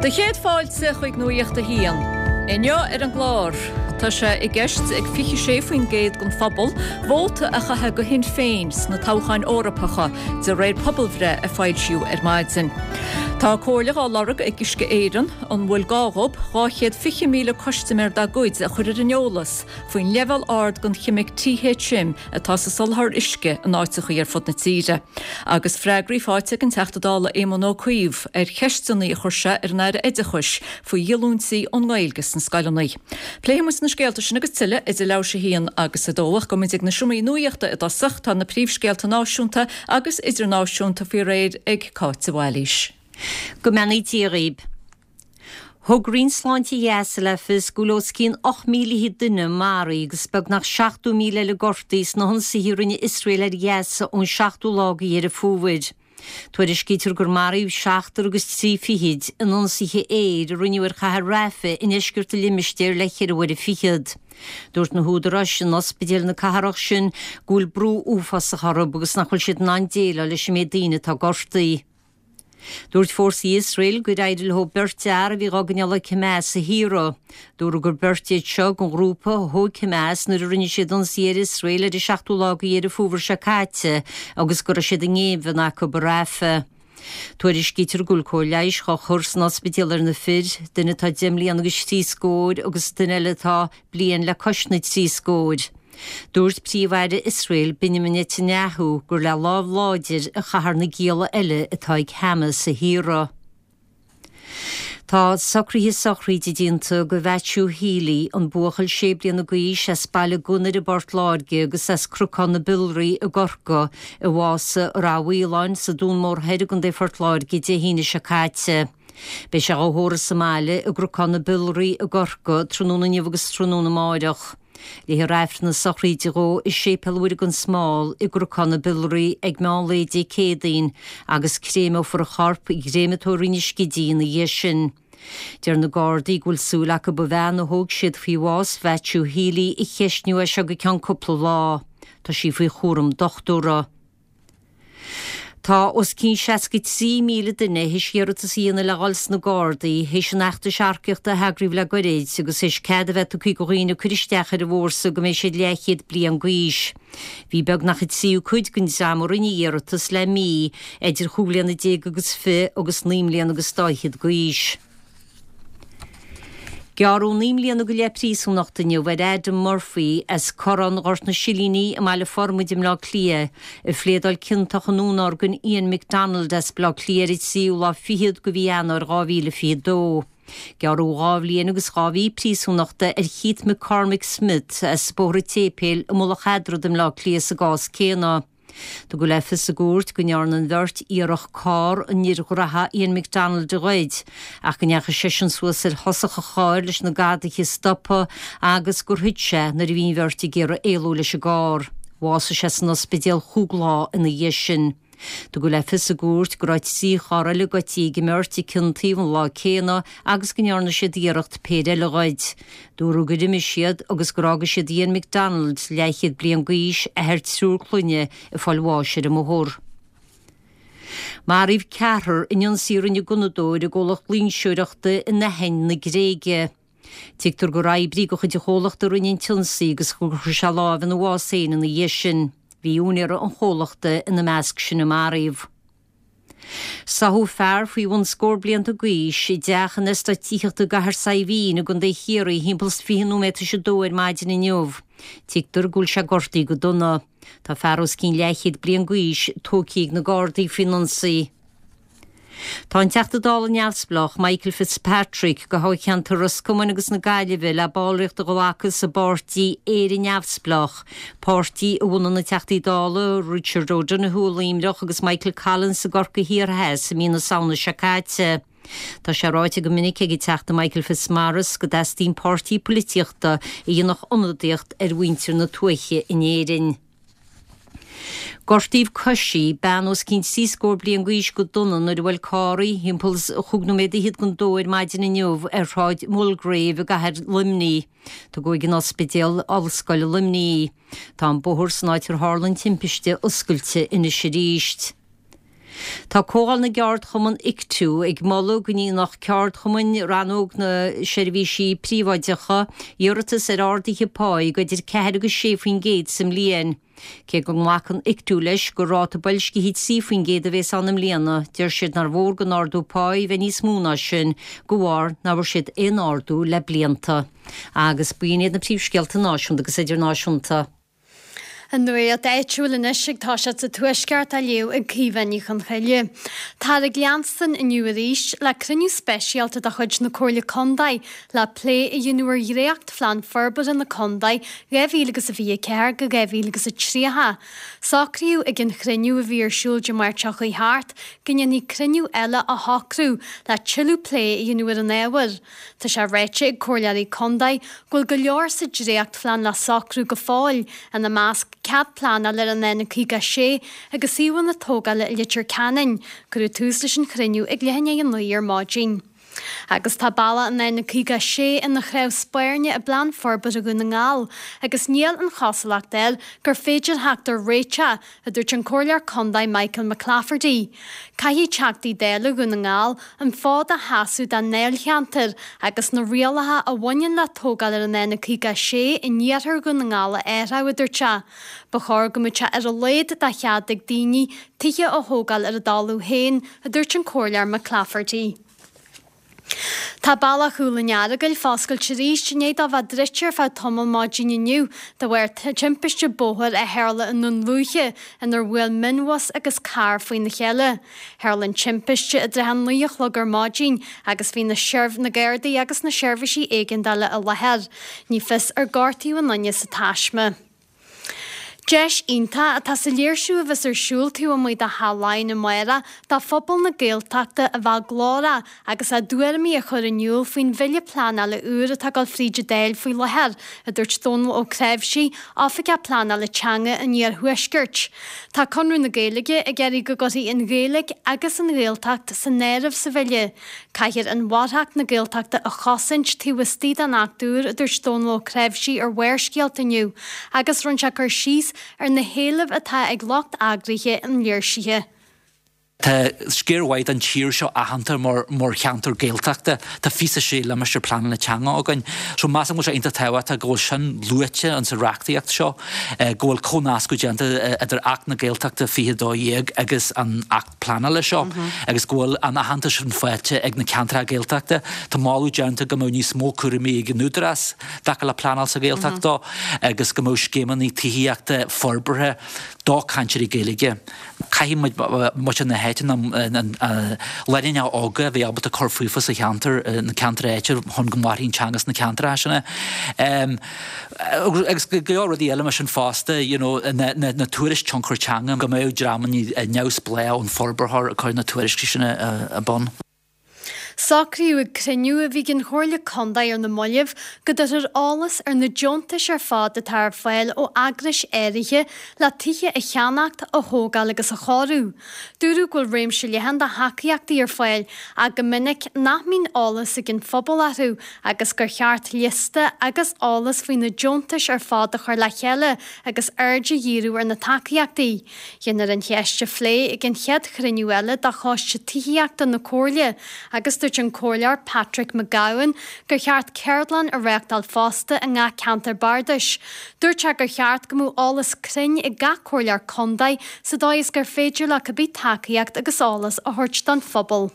Do chéad fáilte chuig Nuacht a hAon. Inniu ar an gclár, tá sé i gceist ag 26% den phobal vóta a chaitheamh do Shinn Féin sna toghcháin Eorpacha, de réir pobalbhreith a foilsíodh ar maidin. Tá comhairle dhá lorg ag Uisce Éireann an bhfuil gá dhób 220,000 custaiméir dá gcuid a chur ar an eolas faoin leibhéal ard den cheimic THM atá sa soláthar uisce in áiteachaí ar fud na tíre. Agus freagraí faighte ag an Teachta Dála Éamon Ó Cuív ar cheisteanna a chuir sé ar an Aire Oideachais faoi dhíolúintí ón nGaeilge sna scoileanna. Pléifidh muid na scéalta sin agus tuilleadh idir leathuair théis a haon agus a dó ach gabhfaidh muid ag na seomraí nuachta i dtosach. Tá na príomhscéalta náisiúnta agus idirnáisiúnta faoi réir ag Cáit de Bhailís. Go mbeannaí Dia dhaoib. Thug Roinn Sláinte Ghaza le fios go bhfuil os cionn 8,000 duine maraithe agus beagnach 70,000 eile gortaithe sna hionsaithe a rinne Iosrael ar Ghaza ón seachtú lá de Dheireadh Fómhair. Tuairiscítear gur maraíodh seachtar agus trí fichid in ionsaithe aeir a rinneadh ar chathair Rafah i ndeisceart an limistéir le ceithre huaire fichead. Dúirt na húdaráis in ospidéil na cathrach sin go bhfuil brú uafásach orthu agus nach bhfuil siad in ann déileáil leis an méid daoine atá gortaithe. Dúirt fórsaí Iosrael gur éirigh leo beirt fhear a bhí dhá gcoinneáil ag Hamas a shaoradh. Dúradh gur beirt iad seo den ghrúpa a thóg Hamas nuair a rinne siad ionsaí ar Iosrael ar an seachtú lá de Dheireadh Fómhair seo caite agus go raibh siad i ngéibheann acu i Rafah. Tuairiscítear go bhfuil cóir leighis dhá chur san ospidéal ar na fir, duine atá deich mbliana agus trí scór agus duine eile atá bliain le cois na dtrí scór. Dúirt Príomh-Aire Iosrael, Benjamin Netanyahu, gur le lámh láidir a chaithfear na gialla eile atá ag Hamas a shaoradh. Tá socruithe sochraide déanta do Mhaitiú Healy, an buachaill sé bliana d'aois as Baile Gunnair i bPort Láirge agus as Cnocán na Biolraí i gCorcaigh, a bhásaigh i Rath Mhaoláin sa Dún Mór Thoir i gContae Phort Láirge Dé hAoine seo caite. Beidh sé dhá thórramh sa mbaile i gCnocán na Biolraí i gCorcaigh tráthnóna inniu agus tráthnóna amáireach. Léifear Aifreann na sochraide dhó i Séipéal Mhuire gan Smál i gCnocán na Biolraí ag meán lae Dé Céadaoin agus créimeofar a chorp i gcréamatóir Inis Gidí ina dhiaidh sin. Deir na Gardaí go bhfuil súil acu an bhean a thóg siad faoi bhás Mhaitiú Healy a cheistniú as seo go ceann cúpla lá. Tá sí faoi chúram dochtúra. Tá os cionn 63,000 duine théis iarratas a dhéanamh le dhul sna Gardaí théis an fheachtais earcaíochta a heagraíodh le goirid agus théis cead a bheith tugtha do dhaoine cur isteach ar an bhfórsa go mbeidh siad leathchéad bliain d'aois. Bhí beagnach an tríú cuid den dream a rinne iarratas le mí idir chúig bhliana déag agus fi agus naoi mbliana agus dá fhichead d'aois. Gearradh 9 mbliana go leith príosúnachta inniu ar Adam Murphy as Corrán Ghort na Silíní i mBaile Formaid i mBleá Cliath, a phléadáil ciontach i ndúnorgain Ian McDonald as Baile Átha Cliath ar an tríú lá fichead de mhí Eanáir 2022. Gearradh 2 bhliain agus 2 mhí príosúnachta ar Keith McCormick Smith as Bóthar an tSéipéil i Mullach Eadrad i mBleá Cliath sa gcás céanna. Tugadh le fios i gcúirt go ndearna an bheirt iarracht carr an fhir ghraithe Ian McDonald a ghoid ach go ndeachaigh seisean suas ar thosach an chairr leis na gadaithe a stopadh agus gur thit sé nuair a bhí an bheirt ag iarraidh éalú leis an gcarr. Bhásaigh sé san ospidéal chúig lá ina dhiaidh sin. Tugadh le fios i gcúirt go raibh 3 charr eile goidte ag an mbeirt ag cionn taobh an lá céanna agus go ndearna siad iarracht péire eile a ghoid. Dúradh gur imigh siad agus gur fhága siad Ian McDonald, leathchéad bliain d'aois, athair triúr clainne, ag fáil bháis ar an mbóthar. Maraíodh ceathrar in ionsaí a rinne gunnadóir i gcomhlacht loingseoireachta in Aithin na Gréige. Tuigtear gur oibrí de chuid an chomhlachta a rinne an t-ionsaí agus gur chuir sé lámh ina bhás féin ina dhiaidh sin. Bhí úinéir an chomhlachta ina measc sin a maraíodh. Sáthadh fear faoi bhun scór blianta d'aois i dteach in eastát tithíochta i gCathair Saidhbhín i gContae Chiarraí thimpeall is 20 nóiméad tar éis a dó ar maidin inniu. Tuigtear go bhfuil sé gortaithe go dona. Tá fear os cionn leathchéad bliain d'aois tógtha ag na Gardaí faoin ionsaí. Tá an Teachta Dála neamhspleách Michael Fitzpatrick do thoghcheantar Ros Comáin agus na Gaillimhe le ballraíocht a ghlacadh sa bpáirtí Éire Neamhspleách, páirtí a bhunaigh na Teachtaí Dála Richard O'Donoghue i Luimneach agus Michael Collins i gCorcaigh Thiar Theas i mí na Samhna seo caite. Tá sé ráite go minic ag an Teachta Michael Fitzmaurice go dteastaíonn páirtí poilitíochta a dhéanfadh ionadaíocht ar mhuintir na tuaithe in Éirinn. Gortaíodh coisí bean os cionn trí scór bliain d'aois go dona nuair a bhuail carr í thimpeall is chúig nóiméad fhichead don dó ar maidin inniu ar Shráid Mulgrave i gcathair Luimnigh. Tugadh ag an Ospidéal Ollscoile Luimnigh í. Tá an bóthar san áit ar tharla an timpiste oscailte anois arís. Tá Comhdháil na gCeardchumann Ictu ag moladh go ndéanfadh ceardchumainn rannóg na seirbhísí príobháideacha iarratas ar arduithe páí de idir 4 agus 6% sa mbliain. Cé go nglacann Ictu leis gur ráta boilscithe 3% a bhéas ann i mbliana, deir siad nár mhór don ardú páí bheith níos mó ná sin, de bharr nach bhfuair siad aon ardú le blianta. Agus b'in iad na príomhscéalta náisiúnta agus idirnáisiúnta. An nuacht áitiúil anois ag toiseacht sa Tuaisceart á léamh ag Caoimhe Ní Chonchoille. Táthar ag leanstan inniu arís le cruinniú speisialta de chuid na Comhairle Contae le plé a dhéanamh ar dhréachtphlean forbartha na contae 2024-2030. Socraíodh ag an chruinniú a bhí ar siúl Dé Máirt seo chuaigh thart go ndéanfaí cruinniú eile a shocrú le tuilleadh plé a dhéanamh ar an ábhar. Tá sé ráite ag comhairleoirí contae go bhfuil go leor sa dréachtphlean le socrú go fóill, ina measc cead pleanála ar an N56 agus suíomhanna tógála i Leitir Ceanainn. Cuireadh tús leis an chruinniú ag leath i ndiaidh a 9 ar maidin. Agus tá bealach an N56 ina chnámh spairne i bPlean Forbartha Dhún na nGall agus níl an chosúlacht air gur féidir theacht ar réiteach a dúirt an Comhairleoir Contae Michael McClafferty. Caithfidh Teachtaí Dála Dhún na nGall an fód a sheasamh dá ndáilcheantar agus na rialacha a bhaineann le tógáil ar an N56 in iarthar Dhún na nGall a athrú, a dúirt sé. Ba chóir go mbeadh sé ar a laghad de chead ag daoine tithe a thógáil ar a dtalamh féin, a dúirt an Comhairleoir McClafferty. Tá bealach Chúil an Earagail foscailte arís i ndiaidh dó bheith druidte ar feadh tamaill maidin inniu de bharr timpiste bóthair a tharla i nDún Lúiche inar bhuail mionbhus agus carr faoina chéile. Tharla an timpiste i dtrátha a 9 a chlog ar maidin agus bhí na na Gardaí agus na seirbhísí éigeandála i láthair. Ní fios ar gortaíodh aon duine sa taisme. Deis iontach atá sa léirsiú a bheas ar siúl taobh amuigh de Theach Laighean amárach do phobal na Gaeltachta a bheith glórach agus a dtuairimí a chur in iúl faoin bhille pleanála úr atá ag dul fríd an Dáil faoi láthair, a dúirt Dónal Ó Cnáimhsí, Oifigeach Pleanála Teanga an Iarthuaiscirt. Tá Conradh na Gaeilge ag iarraidh go gcuirfí an Ghaeilge agus an Ghaeltacht san áireamh sa bhille. Caithfear inmharthanacht na Gaeltachta a chosaint taobh istigh den Acht úr, a dúirt Dónal Ó Cnáimhsí ar Bharrscéalta inniu, agus rinne sé cur síos ar na héilimh atá ag lucht eagraithe an léirsithe. Tá sciar mhaith den tír seo aitheanta mar cheantar Gaeltachta. Tá 26 limistéar pleanála teanga againn. So measaim go bhfuil sé iontach tábhachtach go bhfuil sin luaite in sa reachtaíocht seo, go bhfuil comhnascadh déanta idir Acht na Gaeltachta 2012 agus an Acht pleanála seo agus go bhfuil an aitheantas sin faighte ag na ceantracha Gaeltachta. Tá moladh déanta go mbeadh níos mó cúraimí ag an Údarás i dtaca le pleanáil sa Ghaeltacht dó agus go mbeadh scéimeanna tithíochta forbartha do cainteoirí Gaeilge. Caithfidh muid, muintir na háite, na lánúineacha óga a bheith ábalta cur fúthu sa cheantar, na ceantair áitiúil chun go mairfidh an teanga sna ceantracha sin. Agus go leor rudaí eile mar sin fosta, you know, na tuairisc tionchar teanga, go mbeadh dreamanna neamhspleách ón forbarthóir ag cur na tuairiscí sin ar bun. Socraíodh ag cruinniú a bhí ag an Chomhairle Contae ar na mallaibh go dtabharfar eolas ar na deontais ar fad atá ar fáil ó eagrais áirithe le tithe a cheannacht, a thógáil agus a chóiriú. Dúradh go bhfuil réimse leathan de thacaíochtaí ar fáil ach go minic nach mbíonn eolas ag an phobal orthu agus gur cheart liosta agus eolas faoi na deontais ar fad a chur le chéile agus aird a dhíriú ar na tacaíochtaí. Déanfar an cheist a phlé ag an chéad chruinniú eile de Choiste Tithíochta na Comhairle agus dúirt an Comhairleoir Patrick Mac Gabhann gur cheart ceardlann a réachtáil fosta i ngach ceantar bardais. Dúirt sé gur cheart go mbeadh eolas cruinn ag gach Comhairleoir Contae sa dóigh is gur féidir leo cibé tacaíocht agus eolas a thabhairt don phobal.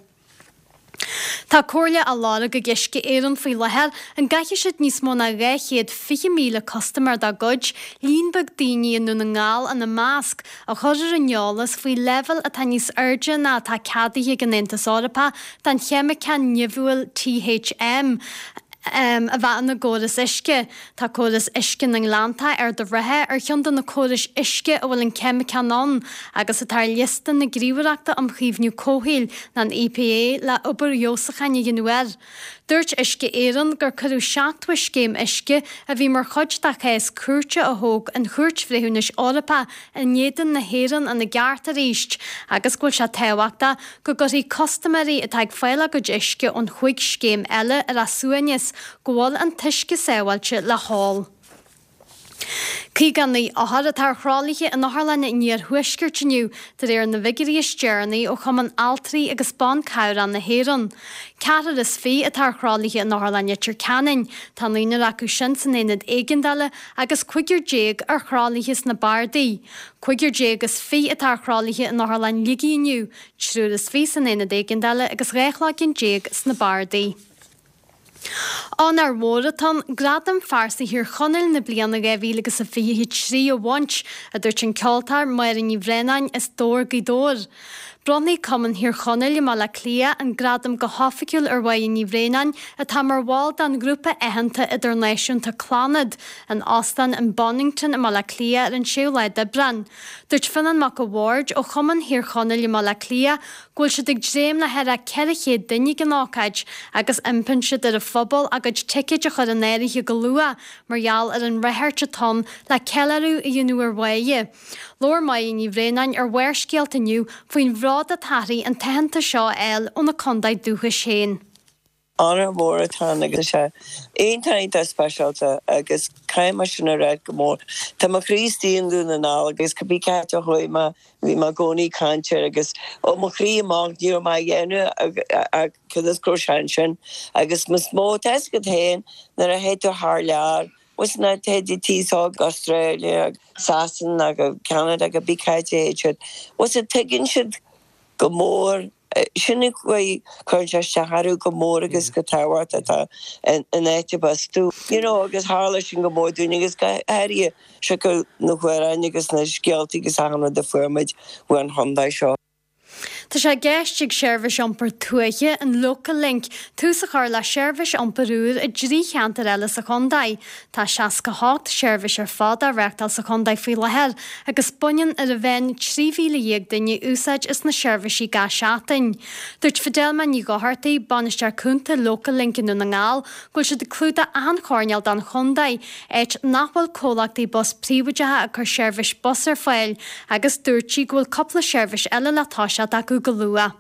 Tá comhairle á lorg ag Uisce Éireann faoi láthair an gcaithfidh siad níos mó ná 220,000 custaiméir dá gcuid, líon beag daoine i nDún na nGall ina measc, a chur ar an eolas faoi leibhéal atá níos airde ná atá ceadaithe ag an Aontas Eorpach den cheimiceán nimhiúil THM a bheith ina gcóras uisce. Tá córas uisce na nGleanntach, Ard an Rátha, ar cheann de na córais uisce a bhfuil an ceimiceán ann agus atá ar liosta na Gníomhaireachta um Chaomhnú Comhshaoil, an EPA, le obair fheabhsúcháin a dhéanamh air. Dúirt Uisce Éireann gur cuireadh 70 scéim uisce a bhí mar chuid de chás cúirte a thóg an Chúirt Bhreithiúnais Eorpach in éadan na hÉireann ina gceart arís agus go bhfuil sé tábhachtach go gcuirfidh custaiméirí atá ag fáil a gcuid uisce ón chúig scéim eile ar a suaimhneas go bhfuil an t-uisce sábháilte le hól. 59 othar atá ar thralaithe in Otharlann an Iarthuaiscirt inniu, de réir na bhfigiúirí is deireanaí ó Chumann Altraí agus Ban Cabhrach na hÉireann. Ceathrar is fiche atá ar thralaithe in Otharlann Leitir Ceanainn, tá naonúr acu sin san aonad éigeandála agus cúigear déag ar thralaithe sna bardaí. Cúigear déag is fiche atá ar thralaithe in Otharlann Shligigh inniu, triúr is fiche san aonad éigeandála agus 12 chloigeann sna bardaí. Onóir mhór atá ann Gradam Phearsa Thír Chonaill na bliana 2023 a bhaint, a dúirt an ceoltóir Máire Ní Bhraonáin as Dobhar, Gaoth Dobhair. Bronnfaidh Cumann Thír Chonaill i mBaile Átha Cliath an gradam go hoifigiúil ar Mháire Ní Bhraonáin, atá mar bhall den ghrúpa aitheanta idirnáisiúnta Clannad, in Óstán an Bonnington i mBaile Átha Cliath ar an 6ú lá d'Aibreán. Dúirt Fionán Mac a' Bhaird ó Chumann Thír Chonaill i mBaile Átha Cliath go bhfuil siad ag dréim le thar 400 duine ag an ócáid agus impíonn siad ar an phobal a gcuid ticéid a chur in áirithe go luath mar gheall ar an ráchairt atá ann le ceiliúradh a dhéanamh ar Mháire. Labhair Máire Ní Bhraonáin ar Bharrscéalta inniu faoin bhród atá uirthi an t-aitheantas seo a fháil óna contae dúchais féin. Onóir mhór atá ann agus tá sé iontach iontach speisialta agus caithfidh mé sin a ráit go mór. Tá mo chroí istigh i nDún na nGall agus cibé cá háit a chuaigh mé bhí mé i gcónaí ag caint air agus ó mo chroí amach ní raibh mé á dhéanamh ach cionn is go raibh sé ansin agus is mó tá fhios agat féin nuair a théid tú thar lear bhfuil na téid tí so go Australia Sasana go Canada cibé cá háit a théid siad bhfuil tuigeann siad go mór Sin an chaoi, cuireann sé isteach orthu go mór agus go tábhachtach atá an áit arb as tú. You know, agus tharla sin go mór dúinn agus go háirithe siocair na hamhráin agus na scéaltaí agus achan rud a fuair muid uaidh an chontae seo. Tá sé i gceist ag seirbhís iompair tuaithe, an Local Link, tús a chur le seirbhís iompair úr i dtrí cheantar eile sa chontae. Tá 68 seirbhís ar fad á reáchtáil sa chontae faoi láthair agus baineann ar a mheán 13,000 duine úsáid as na seirbhísí gach seachtain. Dúirt Fidelma Ní Dhochartaigh, Bainisteoir Cúnta Local Link i nDún na nGall, go bhfuil siad ag clúdach achan choirnéal den chontae, áit nach bhfuil comhlachtaí bus príobháideacha ag cur seirbhís bus ar fáil, agus dúirt sí go bhfuil cúpla seirbhís eile le toiseacht acu go luath.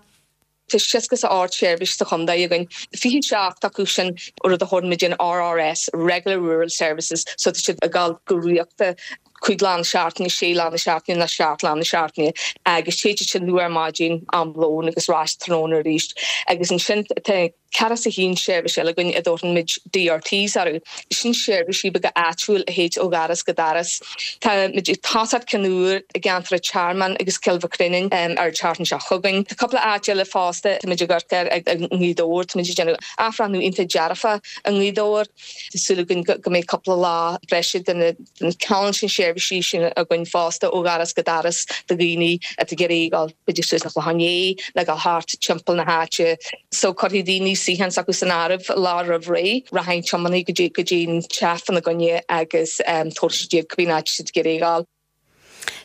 Tá 68 seirbhís sa chontae againn, 27 acu sin rud a thabharann muid an RRS, Regular Rural Services, so tá siad ag dul go rialta 5 lá na seachtaine, 6 lá na seachtaine nó 7 lá na seachtaine agus téid siad sin luath ar maidin, am lóin agus ar ais tráthnóna arís. Agus ansin tá ceathracha is a haon seirbhís eile againn a dtabharfaidh muid DRTs orthu. Sin seirbhísí beaga áitiúil a théid ó dhoras go doras. Tá muid ag tosacht ceann úr i gceantar an Tearmainn agus Cill Mhic Réanáin ar an tseachtain seo chugainn. Tá cúpla áit eile fosta, tá muid ag amharc air i nGaoth Dobhair, tá muid ag déanamh athbhreithniú iontach dearfach i nGaoth Dobhair. Tá súil againn go mbeidh cúpla lá breise de na ceann sin seirbhísí sin againn fosta ó dhoras go doras do dhaoine atá ag iarraidh dul b'fhéidir suas an Chlochán Liath nó dul thart timpeall na háite. So cuirfidh daoine suíochán s'acu san áireamh lá roimh ré, rachaidh an tiománaí go dtí go dtí an teach fána gcoinne agus tabharfaidh siad iad cibé áit siad ag iarraidh dul.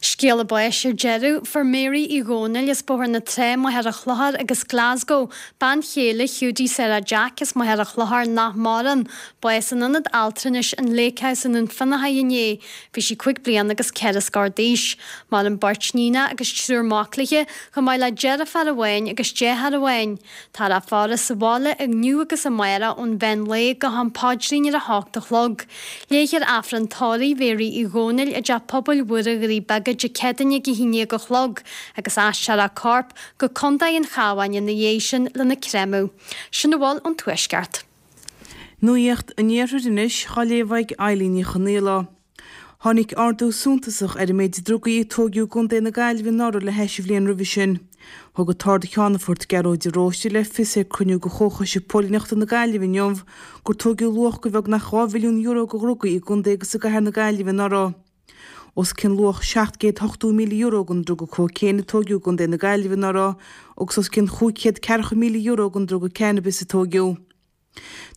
Scéala báis ar deireadh, Fuair Mary Uí Dhónaill as Bóthar na Trá, Machaire Chlochair agus Glasgow, bean chéile Hiúdaí Sarah Jack as Machaire Chlochair nach maireann, bás in Ionad Altranais an Lake House i nDún Fionnachaidh inné. Bhí sí 5 bliana agus ceithre scór d'aois. Maireann beirt níonacha agus triúr mac léi, chomh maith le deirfiúr amháin agus deartháir amháin. Táthar á faire sa bhaile inniu agus amárach ón mheán lae go ham paidrín ar a hocht a chlog. Léifear Aifreann tórraimh Mhéaraí Uí Dhónaill i dTeach Pobail Mhuire Dhoirí Beaga Dé Céadaoine ag a haon déag a chlog agus aistreofar a corp go Contae an Chabháin ina dhiaidh sin lena créamadh. Sin a bhfuil ón Tuaisceart. Nuacht an Iarthair anois, á léamh ag Eilín Ní Chonaola. Tháinig ardú suntasach ar an méid drugaí a tóigeadh i gContae na Gaillimhe anuraidh le hais an bhliain roimhe sin. Thug an tArd-Cheannfort Gearóid de Róiste le fios ag cruinniú de Chomhchoiste Póilíneachta na Gaillimhe inniu gur tóigeadh luach de bheagnach €2 mhilliún de dhrugaí i gcontae agus i gcathair na Gaillimhe anuraidh. Os cionn luach €780,000 den druga cóicéin a tóigeadh i gContae na Gaillimhe anuraidh agus os cionn €540,000 den druga cannabis a tóigeadh.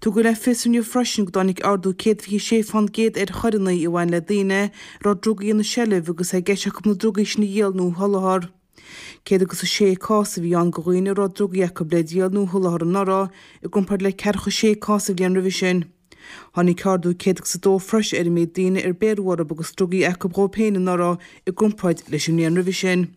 Tugadh le fios inniu freisin go dtáinig ardú 126 fán gcéad ar choireanna a bhain le daoine a raibh drugaí ina seilbh agus é i gceist acu na drugaí sin a dhíol nó a sholáthar. 106 cás a bhí ann de dhaoine a raibh drugaí acu le díol nó a sholáthar anuraidh, i gcomparáid le ceathracha sé cás an bhliain roimhe sin. Tháinig ardú 102 freisin ar an méid daoine ar bhéarradh orthu agus drugaí acu dhóibh féin anuraidh i gcomparáid leis an mbliain roimhe sin.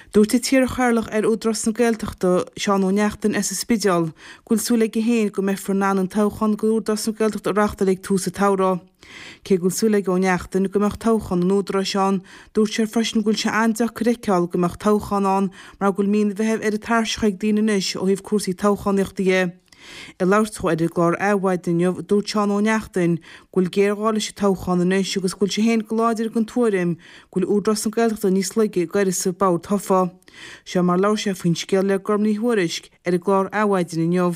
Dúirt an t-iarchathaoirleach ar Údarás na Gaeltachta, Seán Ó Neachtain as an Spidéal, go bhfuil súil aige féin go mbeifear in ann an toghchán d'Údarás na Gaeltachta a reáchtáil ag tús an tsamhraidh. Cé go bhfuil súil ag Ó Neachtain go mbeadh toghchán an Údaráis ann, dúirt sé freisin go bhfuil sé an-deacair a fheiceáil go mbeadh toghchán ann mar go bhfuil mí an Mheithimh ar an tairseach ag daoine anois ó thaobh cúrsaí toghchánaíochta dhe. Ag labhairt dó ar an gclár Adhmhaidin inniu, dúirt Seán Ó Neachtain go bhfuil géarghá leis an toghchán anois agus go bhfuil sé féin go láidir den tuairim go bhfuil Údarás na Gaeltachta níos laige ag uireasa bord tofa. Seo mar a labhair sé faoin scéal le Gorm Ní Thuairisg ar an gclár Adhmhaidin inniu.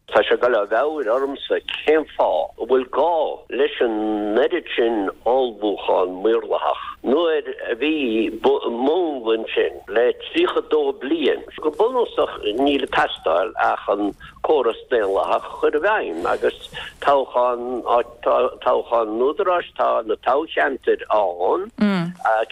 Tá sé ag dul ó mheabhair ormsa cén fáth a bhfuil gá leis an oiread sin ullmhúchán maorlathach nuair a bhí múnla ansin le 32 bliain. Go bunúsach níl ag teastáil ach an córas daonlathach a chur i bhfeidhm agus toghchán, toghchán an Údaráis, tá na toghcheantair ann,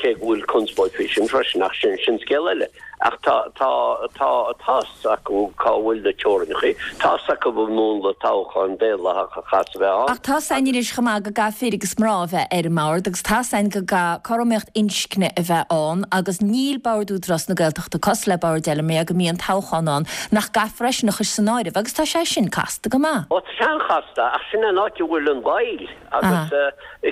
cé go bhfuil conspóid faoi sin freisin ach sin, sin scéal eile. Ach tá, tá, tá, tá's acu cá bhfuil na teorainneacha, tá's acu an múnla toghcháin daonlathach a chaithfeas a bheith ann. Ach tá's againn anois chomh maith go gcaithfidh fir agus mná a bheith ar an mbord agus tá's againn go gcaithfidh cothromaíocht inscne a bheith ann agus níl Bord Údarás na Gaeltachta cosúil le boird eile mar go mbíonn toghchán ann nach gcaithfear eisean a chur san áireamh agus tá sé sin casta go maith. Ó tá sé an-chasta ach sin an áit a bhfuil an mhoill agus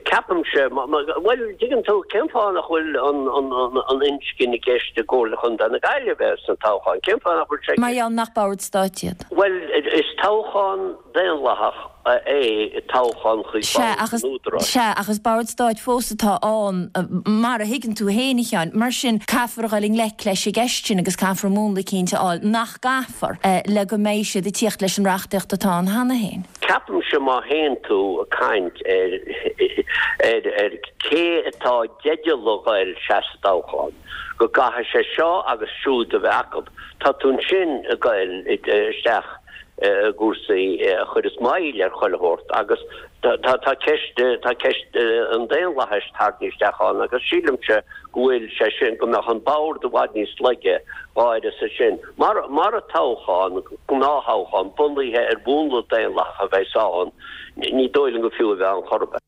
ceapaimse, bhuel, dtuigeann tú, cén fáth nach bhfuil an inscne i gceist i gComhairle Chontae na Gaillimhe sna toghcháin? Cén fáth nach bhfuil sé i Mar gheall nach bord stáit iad. Bhuel, is toghchán daonlathach é toghchán chuig Sea, bord ach is, an Údaráis. sea, ach is bord stáit fós atá ann, mar a thuigeann tú féin, a Sheáin. Mar sin, caithfear a dhul i ngleic leis an gceist sin agus caithfear múnla eicínt a fháil, nach gcaithfear, le go mbeidh siad ag tíocht leis an reachtaíocht atá ann cheana féin. Ceapaimse má théann tú ag caint ar ar ar cé atá i dteideal a ghoil seasamh sa toghchán, go gcaithfidh sé seo agus siúd a bheith acu, tá tú ansin ag goil isteach i gcúrsaí a chuireas moill ar chuile shórt agus tá tá ceist tá ceist an daonlathais tarraingthe isteach ann agus sílimse go bhfuil sé sin, go mbeadh an bord i bhfad níos laige dá uireasa sin. Mar, mara toghchán, gnáth-thoghchán, bunaithe ar mhúnla daonlathach a bheas ann, ní dóigh liom gur fiú a bheith ann chor ar bith.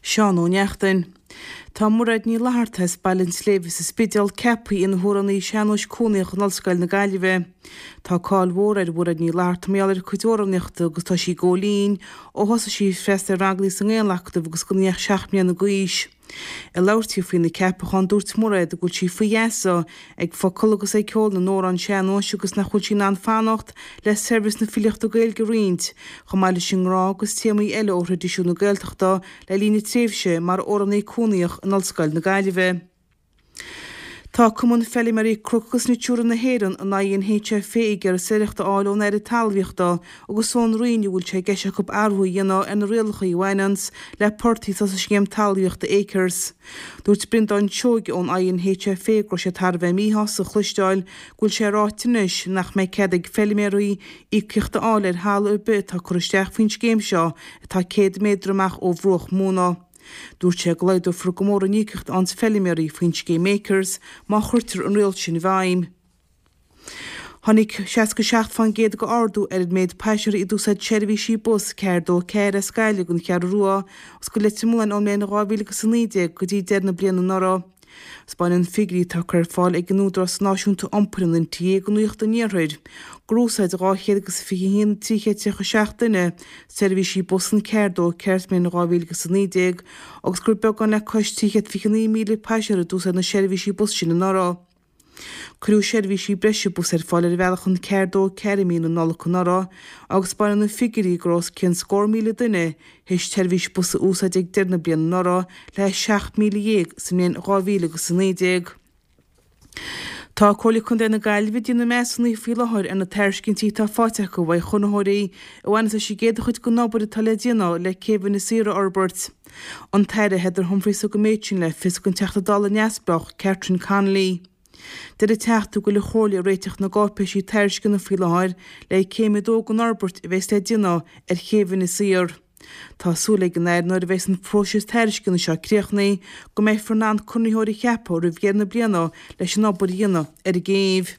Seán Ó Neachtain. Tá Mairéad Ní Fhlatharta as Baile an tSléibhe sa Spidéal ceaptha ina hamhránaí sean-nóis cónaitheach in Ollscoil na Gaillimhe. Tá cáil mhór ar Mhairéad Ní Fhlatharta mar gheall ar a cuid amhránaíochta agus tá sí ag gabháil fhoinn ó thosaigh sí ag freastal ar ranganna sa nGaelacadamh agus gan í ach 7 mbliana d'aois. Ag labhairt di faoina ceapachán, dúirt Mairéad go bhfuil sí faoi gheasa ag focail agus ag ceol na n-amhrán sean-nóis agus nach bhfuil sí in ann fanacht le saibhreas na filíochta Gaeilge a roinnt, chomh maith leis an ngrá agus téamaí eile ó thraidisiún na Gaeltachta le linn a tréimhse mar amhránaí cónaitheach in Ollscoil na Gaillimhe. Tá Cumann Feilméaraí Cnoc agus Natura na hÉireann, an INHFA, ag iarraidh soiléireacht a fháil ón Aire Talmhaíochta agus ón Roinn an bhfuil sé i gceist acu athrú a dhéanamh ar na rialacha a bhaineanns le portaigh atá sa scéim talmhaíochta Acres. Dúirt Breandán Seoige ón INHFA go raibh sé thar a bheith míshásta a chloisteáil go bhfuil sé ráite anois nach mbeidh cead ag feilméaraí íocaíocht a fháil ar thalamh ar bith atá curtha isteach faoin scéim seo atá 100 méadar amach ó bhruach móna. Dúirt sé go laghdófar go mór an íocaíocht a fhaigheanns feilméaraí faoin scéim Acres má chuirtear an riail sin i bhfeidhm. Tháinig 67% de ardú ar an méid paisinéirí a d'úsáid seirbhísí bus 4 2 4 as Gaillimh don Cheathrú Rua agus go Leitir Mealláin ón mbliain 2019 go dtí deireadh na bliana anuraidh. Spáineann figiúirí atá curtha ar fáil ag an Údarás Náisiúnta Iompair, an NTA, do Nuacht an Iarthair gur úsáid 221 337 duine seirbhísí bus an 4 2 4 sa mbliain 2019 agus gur beagán le cois 329,000 paisinéir a d'úsáid na seirbhísí bus sin anuraidh. Cuireadh seirbhísí breise bus ar fáil ar bhealach an 4 2 4 i mí na Nollag anuraidh agus spáineann na figiúirí go raibh os cionn scór míle duine théis tseirbhís bus a úsáid ag deireadh na bliana anuraidh le 17,000 sa mbliain 2019. Tá Comhairle Contae na Gaillimhe ag déanamh measúnaithe faoi láthair ar na tairiscintí atá faighte acu uaidh chonraitheoirí a bhaineas leis an gcéad chuid den obair atá le déanamh le Céibh Inis Oírr a fhorbairt. An tAire Heather Humphreys a thug an méid sin le fios don Teachta Dála neamhspleách Catherine Connolly. Deir an Teachta go bhfuil an Chomhairle ag réiteach na gcáipéisí tairisceana faoi láthair le céim a dó den fhorbairt a bheas le déanamh ar Chéibh Inis Oírr. Tá súil ag an Aire nuair a bheas an próiseas tairisceana seo críochnaithe go mbeifear in ann conraitheoir a cheapadh roimh dheireadh na bliana leis an obair a dhéanamh ar an gcéibh.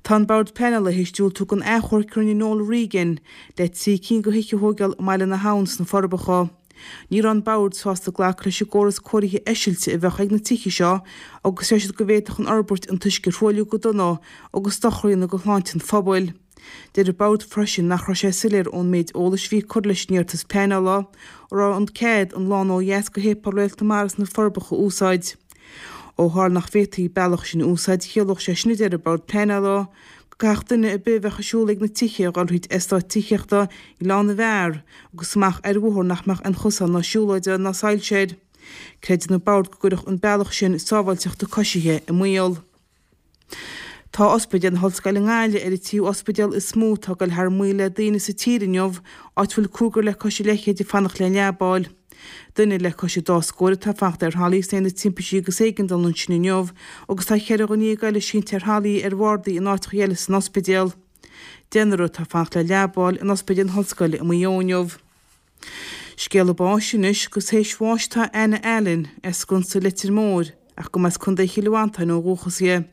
Tá an Bord Pleanála théis diúltú don achomharc a rinne Noel Regan le 3 cinn de thithe a thóigeáil i mBaile na hAbhann sna Forbacha. Ní raibh an Bord sásta glacadh leis an gcóras cóirithe eisilte a bheadh ag na tithe seo agus deir siad go bhféadfadh an fhorbairt an t-uisce a thruailliú go dona agus dochar a dhéanamh do shláinte an phobail. Deir an Bord freisin nach raibh sé soiléir ón méid eolais a bhí curtha leis an iarratas pleanála an raibh an cead an lána ó dheas go Shéipéal Réalt na Mara sna Forbacha a úsáid. Ó tharla nach bhféadfaí an bealach sin a úsáid chiallódh sé sin a deir an Bord Pleanála, go gcaithfeadh duine ar bith a bheadh ag siúl ag na tithe a dhul thríd eastát tithíochta Ghleann na bhFear agus amach ar bhóthar nach mbeadh aon chosán ná siúlóide ná soilse air. Creideann an Bord go gcuirfeadh an bealach sin sábháilteacht na coisithe i mbaol. Tá Ospidéal na hOllscoile i nGaillimh ar an tríú ospidéal is mó atá ag dul thar maoil le daoine sa tír inniu, áit a bhfuil cúigear le cois a leithchéid ag fanacht le leaba a fháil. Duine le cois an dá scóir atá ag fanacht ar thralaí san Aonad Timpistí agus Éigeandála ansin inniu agus tá cheithre dhuine dhéag eile sínte ar thralaí ar bhardaí in áiteacha eile san ospidéal. Deichniúr atá ag fanacht le leaba a fháil in Ospidéal na hOllscoile i Maigh Eo inniu. Scéala báis anois agus théis bháis atá Anna Allen, as Sconsa Leitir Móir, ach go mba as Contae Chill Mhantáin ó dhúchas í.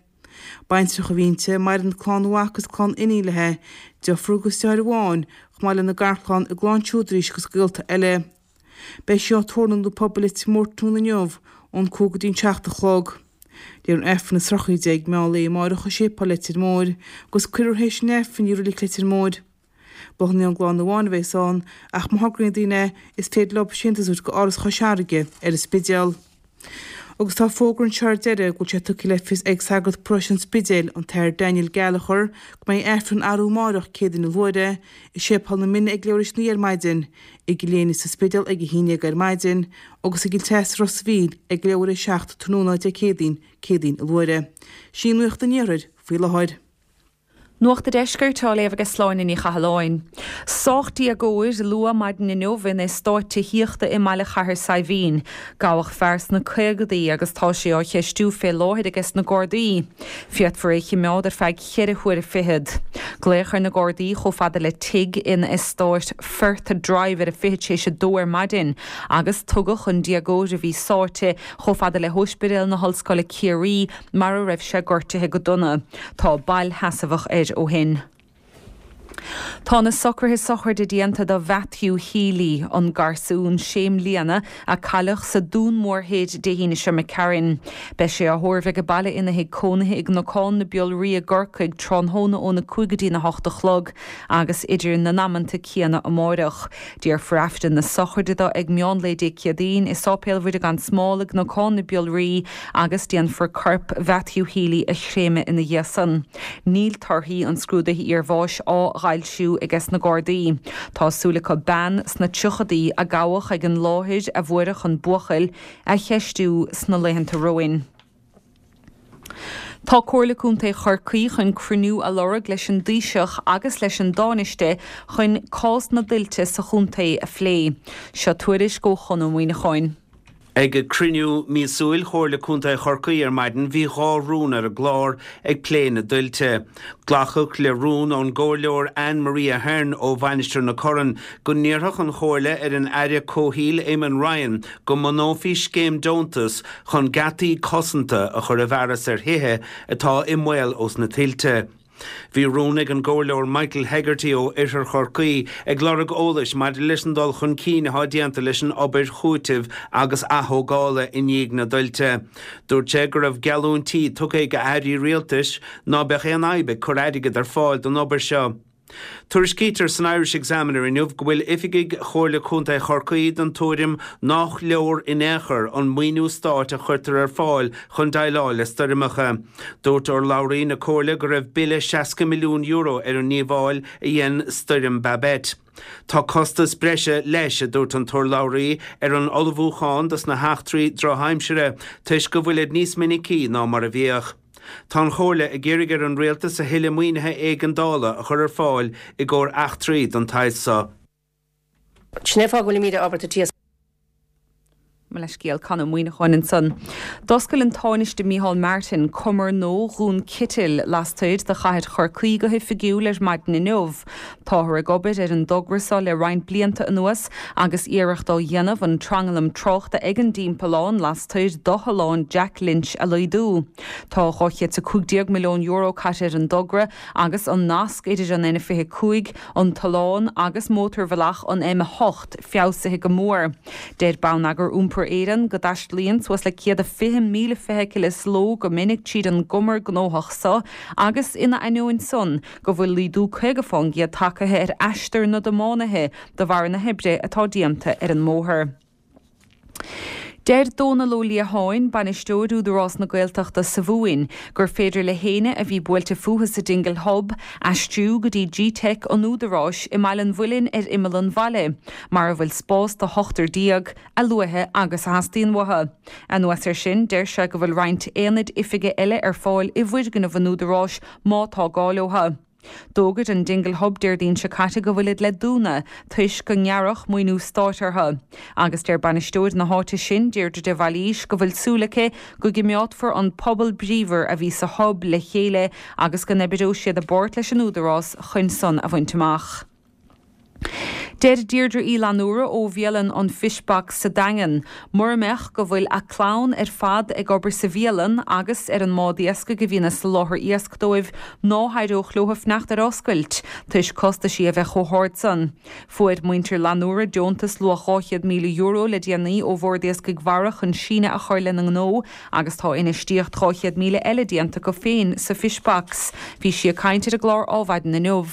Baintreach a bhí inti, maireann clann mhac agus clann iníon léi, deirfiúr agus deartháir amháin, chomh maith lena garchlann, a gclann siúd arís agus gaolta eile. Beidh sí á tórramh in Ionad Pobail Leitir Móir tráthnóna inniu, ón 5 go dtí an 7 a chlog. Léifear an Aifreann a 13 meán lae amáireach i Séipéal Leitir Móir agus cuirfear théis an Aifrinn í i Reilig Leitir Móir. Bláthanna ón gclann amháin a bheas ann ach má thograíonn daoine é, is féidir leo síntiús a thabhairt go Áras Chois Fharraige ar an Spidéal. Agus tá fógra anseo ar deireadh go bhfuil sé tugtha le fios ag sagart paróiste an Spidéil, an tAthair Daniel Gallagher, go mbeidh Aifreann arú amáireach, Céadaoin a luaithre, i Séipéal na Mine ag leathuair tar éis a 9 ar maidin, i gCill Éinne sa Spidéal ag 11 ar maidin, agus i gCill Treasa Ros a' Mhíl ag leathuair tar éis a 7 tráthnóna Dé Céadaoin, Céadaoin a luaithre. Sin í nuacht an Iarthair faoi láthair. Nuacht a' Deiscirt á léamh aige Sláine Ní Chathalláin. Sách déagóir luath maidin inniu in eastát tithíochta i mbaile Chathair Saidhbhín. Gabhadh fear sna caogadaí agus tá sé á cheistiú fé láthair aige sna Gardaí. Féadfar é chimeád ar feadh cheithre huaire fichead. Glaodh ar na Gardaí chomh fada le tigh in eastát Firth Drive ar a fichead théis a dó ar maidin agus tugadh an déagóir a bhí sáite chomh fada le hÓispidéal na hOllscoile Ciarraí mar a raibh sé gortaithe go dona. Tá bail sheasmhach air ó shin. Tá na socruithe sochraide déanta do Mhatthew Healy, an garsún sé mbliana a cailleadh sa Dún Mór Thoir Dé hAoine seo imigh tharainn. Beidh sé á thórramh age baile ina thigh cónaithe i gCnocán na Biolraí i gCorcaigh tráthnóna óna 5 go dtína 8 a chlog agus idir na n-amanta céanna amáireach. Déarfar Aifreann na sochraide dó ag meán lae Dé Céadaoin i Sáipéal Mhuire gan Smál i gCnocán na Biolraí agus déanfar corp Mhatthew Healy a chréamadh ina dhiaidh san. Níl torthaí an scrúdaithe iarbháis á bhfoilsiú aige sna Gardaí. Tá súil acu bean sna tríochadaí a gabhadh ag an láthair a fuaireadh an buachaill, a cheistiú sna laethanta romhainn. Tá Comhairle Contae Chorcaí chun cruinniú a lorg leis an dTaoiseach agus leis an dTánaiste chun cás na dtuilte sa chontae a phlé. Seo tuairisc ó Chon Ó Muíneacháin. Ag cruinniú míosúil Chomhairle Contae Chorcaí ar maidin bhí 2 rún ar an gclár ag plé na dtuilte. Glacadh le rún ón gComhairleoir Anne Marie Ahern ó Mhainistir na Corann go n-iarrfadh an Chomhairle ar an Aire Comhshaoil Eamon Ryan go mbunófaí scéim deontas chun geataí cosanta a chur i bhfearas ar thithe atá i mbaol ós na tuilte. Bhí rún ag an gComhairleoir Michael Hegarty ó Oirthear Chorcaí ag lorg eolais maidir leis an dul chun cinn atá déanta leis an obair chúitimh agus athógála i ndiaidh na dtuilte. Dúirt sé go raibh geallúintí tugtha ag airí rialtais ná beadh aon fhadhb ag cur airgead ar fáil don obair seo. Tuairiscítear san Irish Examiner inniu go bhfuil oifigigh Chomhairle Contae Chorcaí den tuairim nách leor in aon chor an maoiniú stáit a chuirtear ar fáil chun déileáil le stoirmeacha. Dúirt urlabhraí na Comhairle go raibh bille €60 milliún ar an ndíobháil a dhein Stoirm Babet. Tá costas breise leis, a dúirt an t-urlabhraí, ar an ullmhúchán dos na heachtraí drochaimsire toisc go bhfuilid níos minicí ná mar a bhíodh. Tá an Chomhairle ag iarraidh ar an Rialtas a thuilleadh maoinithe éigeandála a chur ar fáil i gcomhair eachtraí den tsaghas so. Sin é fáth go bhfuilimid ábalta tíos. Mo leithscéal, Con Ó Muíneacháin ansan. D'oscail an Tánaiste Micheál Martin cumar nua Dhún Citil lastoir de chathair Chorcaí go hoifigiúil ar maidin inniu. Táthar ag obair ar an dtogra seo le roinnt blianta anuas agus iarracht á dhéanamh an tranglam tráchta ag an dtimpeallán lastoir d'Otharlann Jack Lynch a laghdú. Tá €215 milliún caite ar an dtogra agus an nasc idir an N25, an t-oileán agus mótarbhealach an M8 feabhsaithe go mór. Deir Bonneagar Iompair Éireann go dtaistealaíonn suas le 120,000 feithicil sa ló go minic tríd an gcumar gnóthach so agus ina ainneoin san go bhfuil laghdú 50 fán gcéad tagtha ar aistear na dtiománaithe de bharr na hoibre atá déanta ar an mbóthar. Deir Dónal Ó Liatháin, Bainisteoir Údarás na Gaeltachta sa Mhumhain, gur féidir le héinne a bhí buailte fúthu sa Dingle Hub aistriú go dtí Gteic an Údaráis i mBaile an Mhuilinn ar imeall an bhaile, mar a bhfuil spás do hochtar déag, a luaithe agus a theastaíonn uathu. Anuas air sin, deir sé go bhfuil roinnt aonaid oifige eile ar fáil i bhfoirgneamh an Údaráis má tá gá leo. D'fhógair an Dingle Hub Déardaoin seo caite go bhfuilid le dúnadh toisc go ngearradh maoiniú stáit orthu. Agus deir bainisteoir na háite sin, Deirdre de Bhailís, go bhfuil súil aici go gcimeádfar an pobal bríomhar a bhí sa Hub le chéile agus go n-oibreoidh siad i bpáirt leis an Údarás chun san a bhaint amach. Deir Deirdre Uí Fhlannúra ó bhialann an Fish Box sa Daingean, mura mbeadh go bhfuil a clann ar fad ag obair sa bhialann agus ar an mbád iascaigh a bhíonn ag soláthar iasc dóibh, ná héireodh leo fanacht ar oscailt, toisc costaisí a bheith chomh hard san. Fuair muintir Fhlannúra deontas luach €200,000 le déanaí ó Bhord Iascaigh Mhara chun síneadh a chur lena ngnó agus tá infheistíocht 200,000 eile déanta acu féin sa Fish Box. Bhí sí ag caint ar an gclár Ádhmhaidin inniu.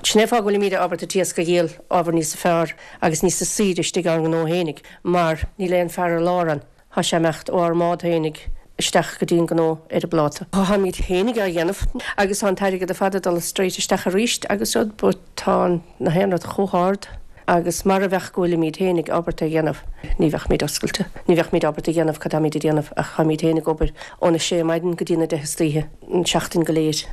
Sin é an fáth go bhfuilimíd ábalta an t-iasc a dhíol ábhar níosa fearr agus níosa saoire istigh ár ngnó fhéinig mar níl aon fear ar lár ann. Thá sé imeacht ó ár mbád fhéinig isteach go dtí an gnó ar an bpláta. Tháimíd fhéinig á dhéanamh agus tá an t-airgead ar fad ag dul straight isteach aríst agus rud but tá na haon rud chomh hard agus mara bheadh go bhfuilimíd fhéinig ábalta a dhéanamh ní bheadh-míd oscailte. Ní bheadh-míd ábalta a dhéanamh cad táimíd a déanamh ach táimíd fhéinig ag obair óna sé maidin go dtí na deich istoíche an seachtain go léir.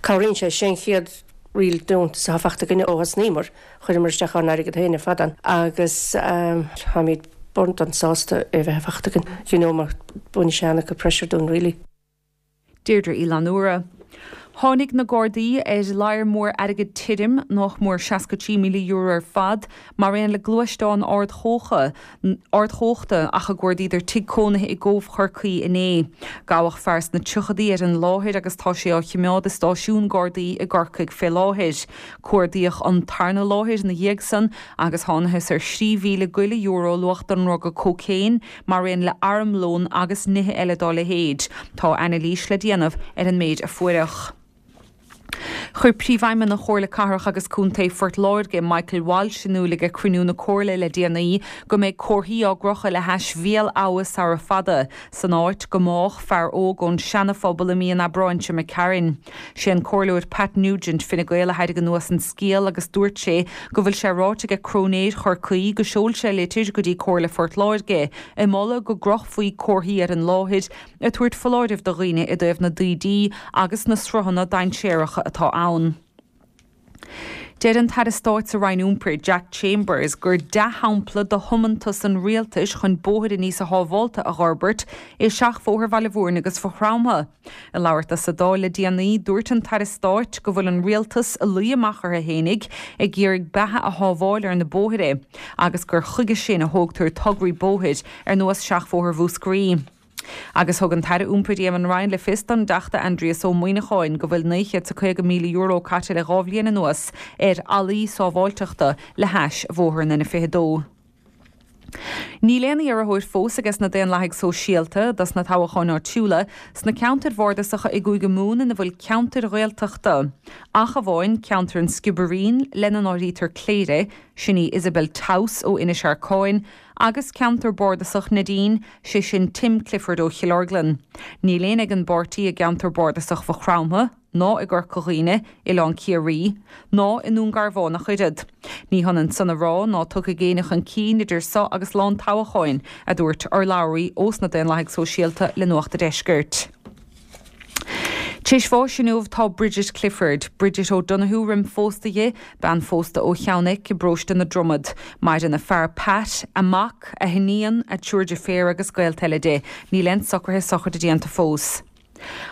Cabhraíonn sé, sé an chéad real deontas atá fachta againne ó thosnaíomar, chuireamar isteach ár n-airgead féin ar fad ann agus táimid burned sásta é a bheith fachta againn, you know mar baineann sé an-chuid pressure dúinn really. Deirdre Uí Fhlannúra. Tháinig na Gardaí ar ladhar mór airgid tirim, nách mór €63,000 ar fad, mar aon le gluaisteán ardchumhachta ach a gcuardaíodar tigh cónaithe i gCóbh Chorcaí inné. Gabhadh fear sna tríochadaí ar an láthair agus tá sé á chimeád i stáisiún Gardaí i gCorcaigh fé láthair. Cuardaíodh an tarna láthair ina dhiaidh san agus thánathas ar 3,000 go leith euro luach den ndruga cócaon mar aon le armlón agus nithe eile dá leithéid. Tá anailís le déanamh ar an méid a fuaireadh. Chuir Príomhfheidhmeannach Chomhairle Cathrach agus Contae Phort Láirge, Michael Walsh, in iúl ag cruinniú na Comhairle le déanaí go mbeidh comharthaí á gcrochadh le hais Bhéal Abha sara fada, san áit go mbádh fear óg ón Seana-Phobal i mí an Aibreáin seo imigh tharainn. Sé an Comhairleoir Pat Nugent, Fine Gael, a thairg anuas an scéal agus dúirt sé go bhfuil sé ráite aige Cróinéir Chorcaí go seol sé litir go dtí Comhairle Phort Láirge ag moladh go gcrochfaí comharthaí ar an láthair ag tabhairt foláirimh do dhaoine i dtaobh na dtaoidí agus na sruthanna dainséaracha atá ann. Deir an tAire Stáit sa Roinn Iompair, Jack Chambers, gur dea-shampla de thiomantas an rialtais chun bóithre níosa shábhálta a dh'fhorbairt é Seachbhóthar Bhaile Mhúirne agus Mhaigh Chromtha. Ag labhairt dó sa Dáil le déanaí, dúirt an tAire Stáit go bhfuil an rialtas ag luí amach orthu fhéinig ag iarraidh beatha a shábháil ar na bóithre agus gur chuige sin a thógtar tograí bóthair ar nós Seachbhóthar Mhúscraí. Agus thug an tAire Iompair Eamon Ryan le fios don dTeachta Aindrias Ó Muimhneacháin go bhfuil €950,000 caite le 2 bhliain anuas ar fhallaí sábháilteachta le hais bhóthar an N22. Níl aon iarrthóir fós ages na Daonlathaigh Sóisialta dos na toghacháin áitiúla sna ceantair bhardasacha i gCúige Mumhan ina bhfuil ceantair Ghaeltachta, ach amháin ceantar an Sciobairín, lena n-áirítear Cléire, sin í Isabel Towse ó Inis Arcáin, agus ceantar bardasach Neidín, sé sin Tim Clifford ó Chill Orglan. Níl éinne ag an bpáirtí i gceantar bardasach Mhaigh Chromtha, ná i gCorca Dhuibhne, Oileán Ciarraí, ná i nDún Garbhán ach oiread. Ní hionann san a rá ná tiocfaidh éinne chun cinn idir seo agus lá an toghacháin, a dúirt urlabhraí ós na Daonlathaigh Sóisialta le Nuacht a' Deiscirt. Tar éis bháis inniu tá Bridget Clifford, Bridget O'Donoghue roim phósta dhi, bean phósta ó Cheann Eich i bparóiste na Dromad. Maireann a fear Pat, a mac, a hiníon, a triúr deirféar agus gaolta eile di. Níl aon socruithe sochraide déanta fós.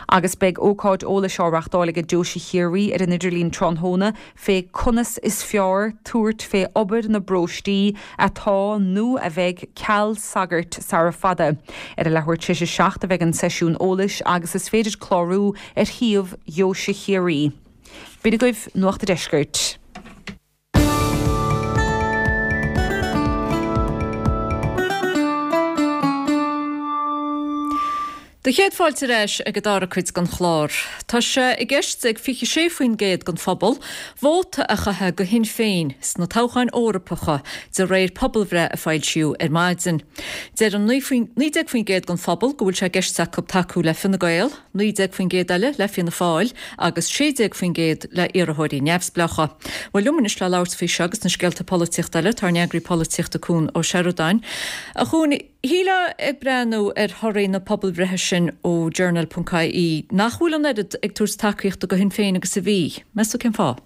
Agus beidh ócáid eolais á reachtáil aige Deoise Chiarraí ar an idirlíon tráthnóna fé conas is fearr tabhairt fé obair na bparóistí atá nó a bheidh ceal sagairt sara fada. Ar a leathuair tar éis a 7 a bheidh an seisiún eolais agus is féidir clárú ar shuíomh Dheoise Chiarraí. B'in agaibh Nuacht a' Deiscirt. Do chéad fáilte ar ais ag an dara cuid den chlár. Tá sé i gceist ag 26% den phobal vóta a chaitheamh do Shinn Féin sna toghcháin Eorpacha de réir pobalbhreith a foilsíodh ar maidin. Deir 19% den phobal go bhfuil sé i gceist acu tacú le Fine Gael, 19% eile le Fianna Fáil agus 16% le iarrthóirí neamhspleácha. Bhuel, liom anois le labhairt faoi seo agus na scéalta polaitíochta eile, tá ár n-eagraí polaitíochta Cuan Ó Seireadáin. A Chuain, shílfeá ag breathnú ar thorthaí na pobalbhreithe sin ó Journal.ie nach bhfuil an oiread ag tabhairt tacaíochta do Shinn Féin agus a bhí. Meas tú cén fáth?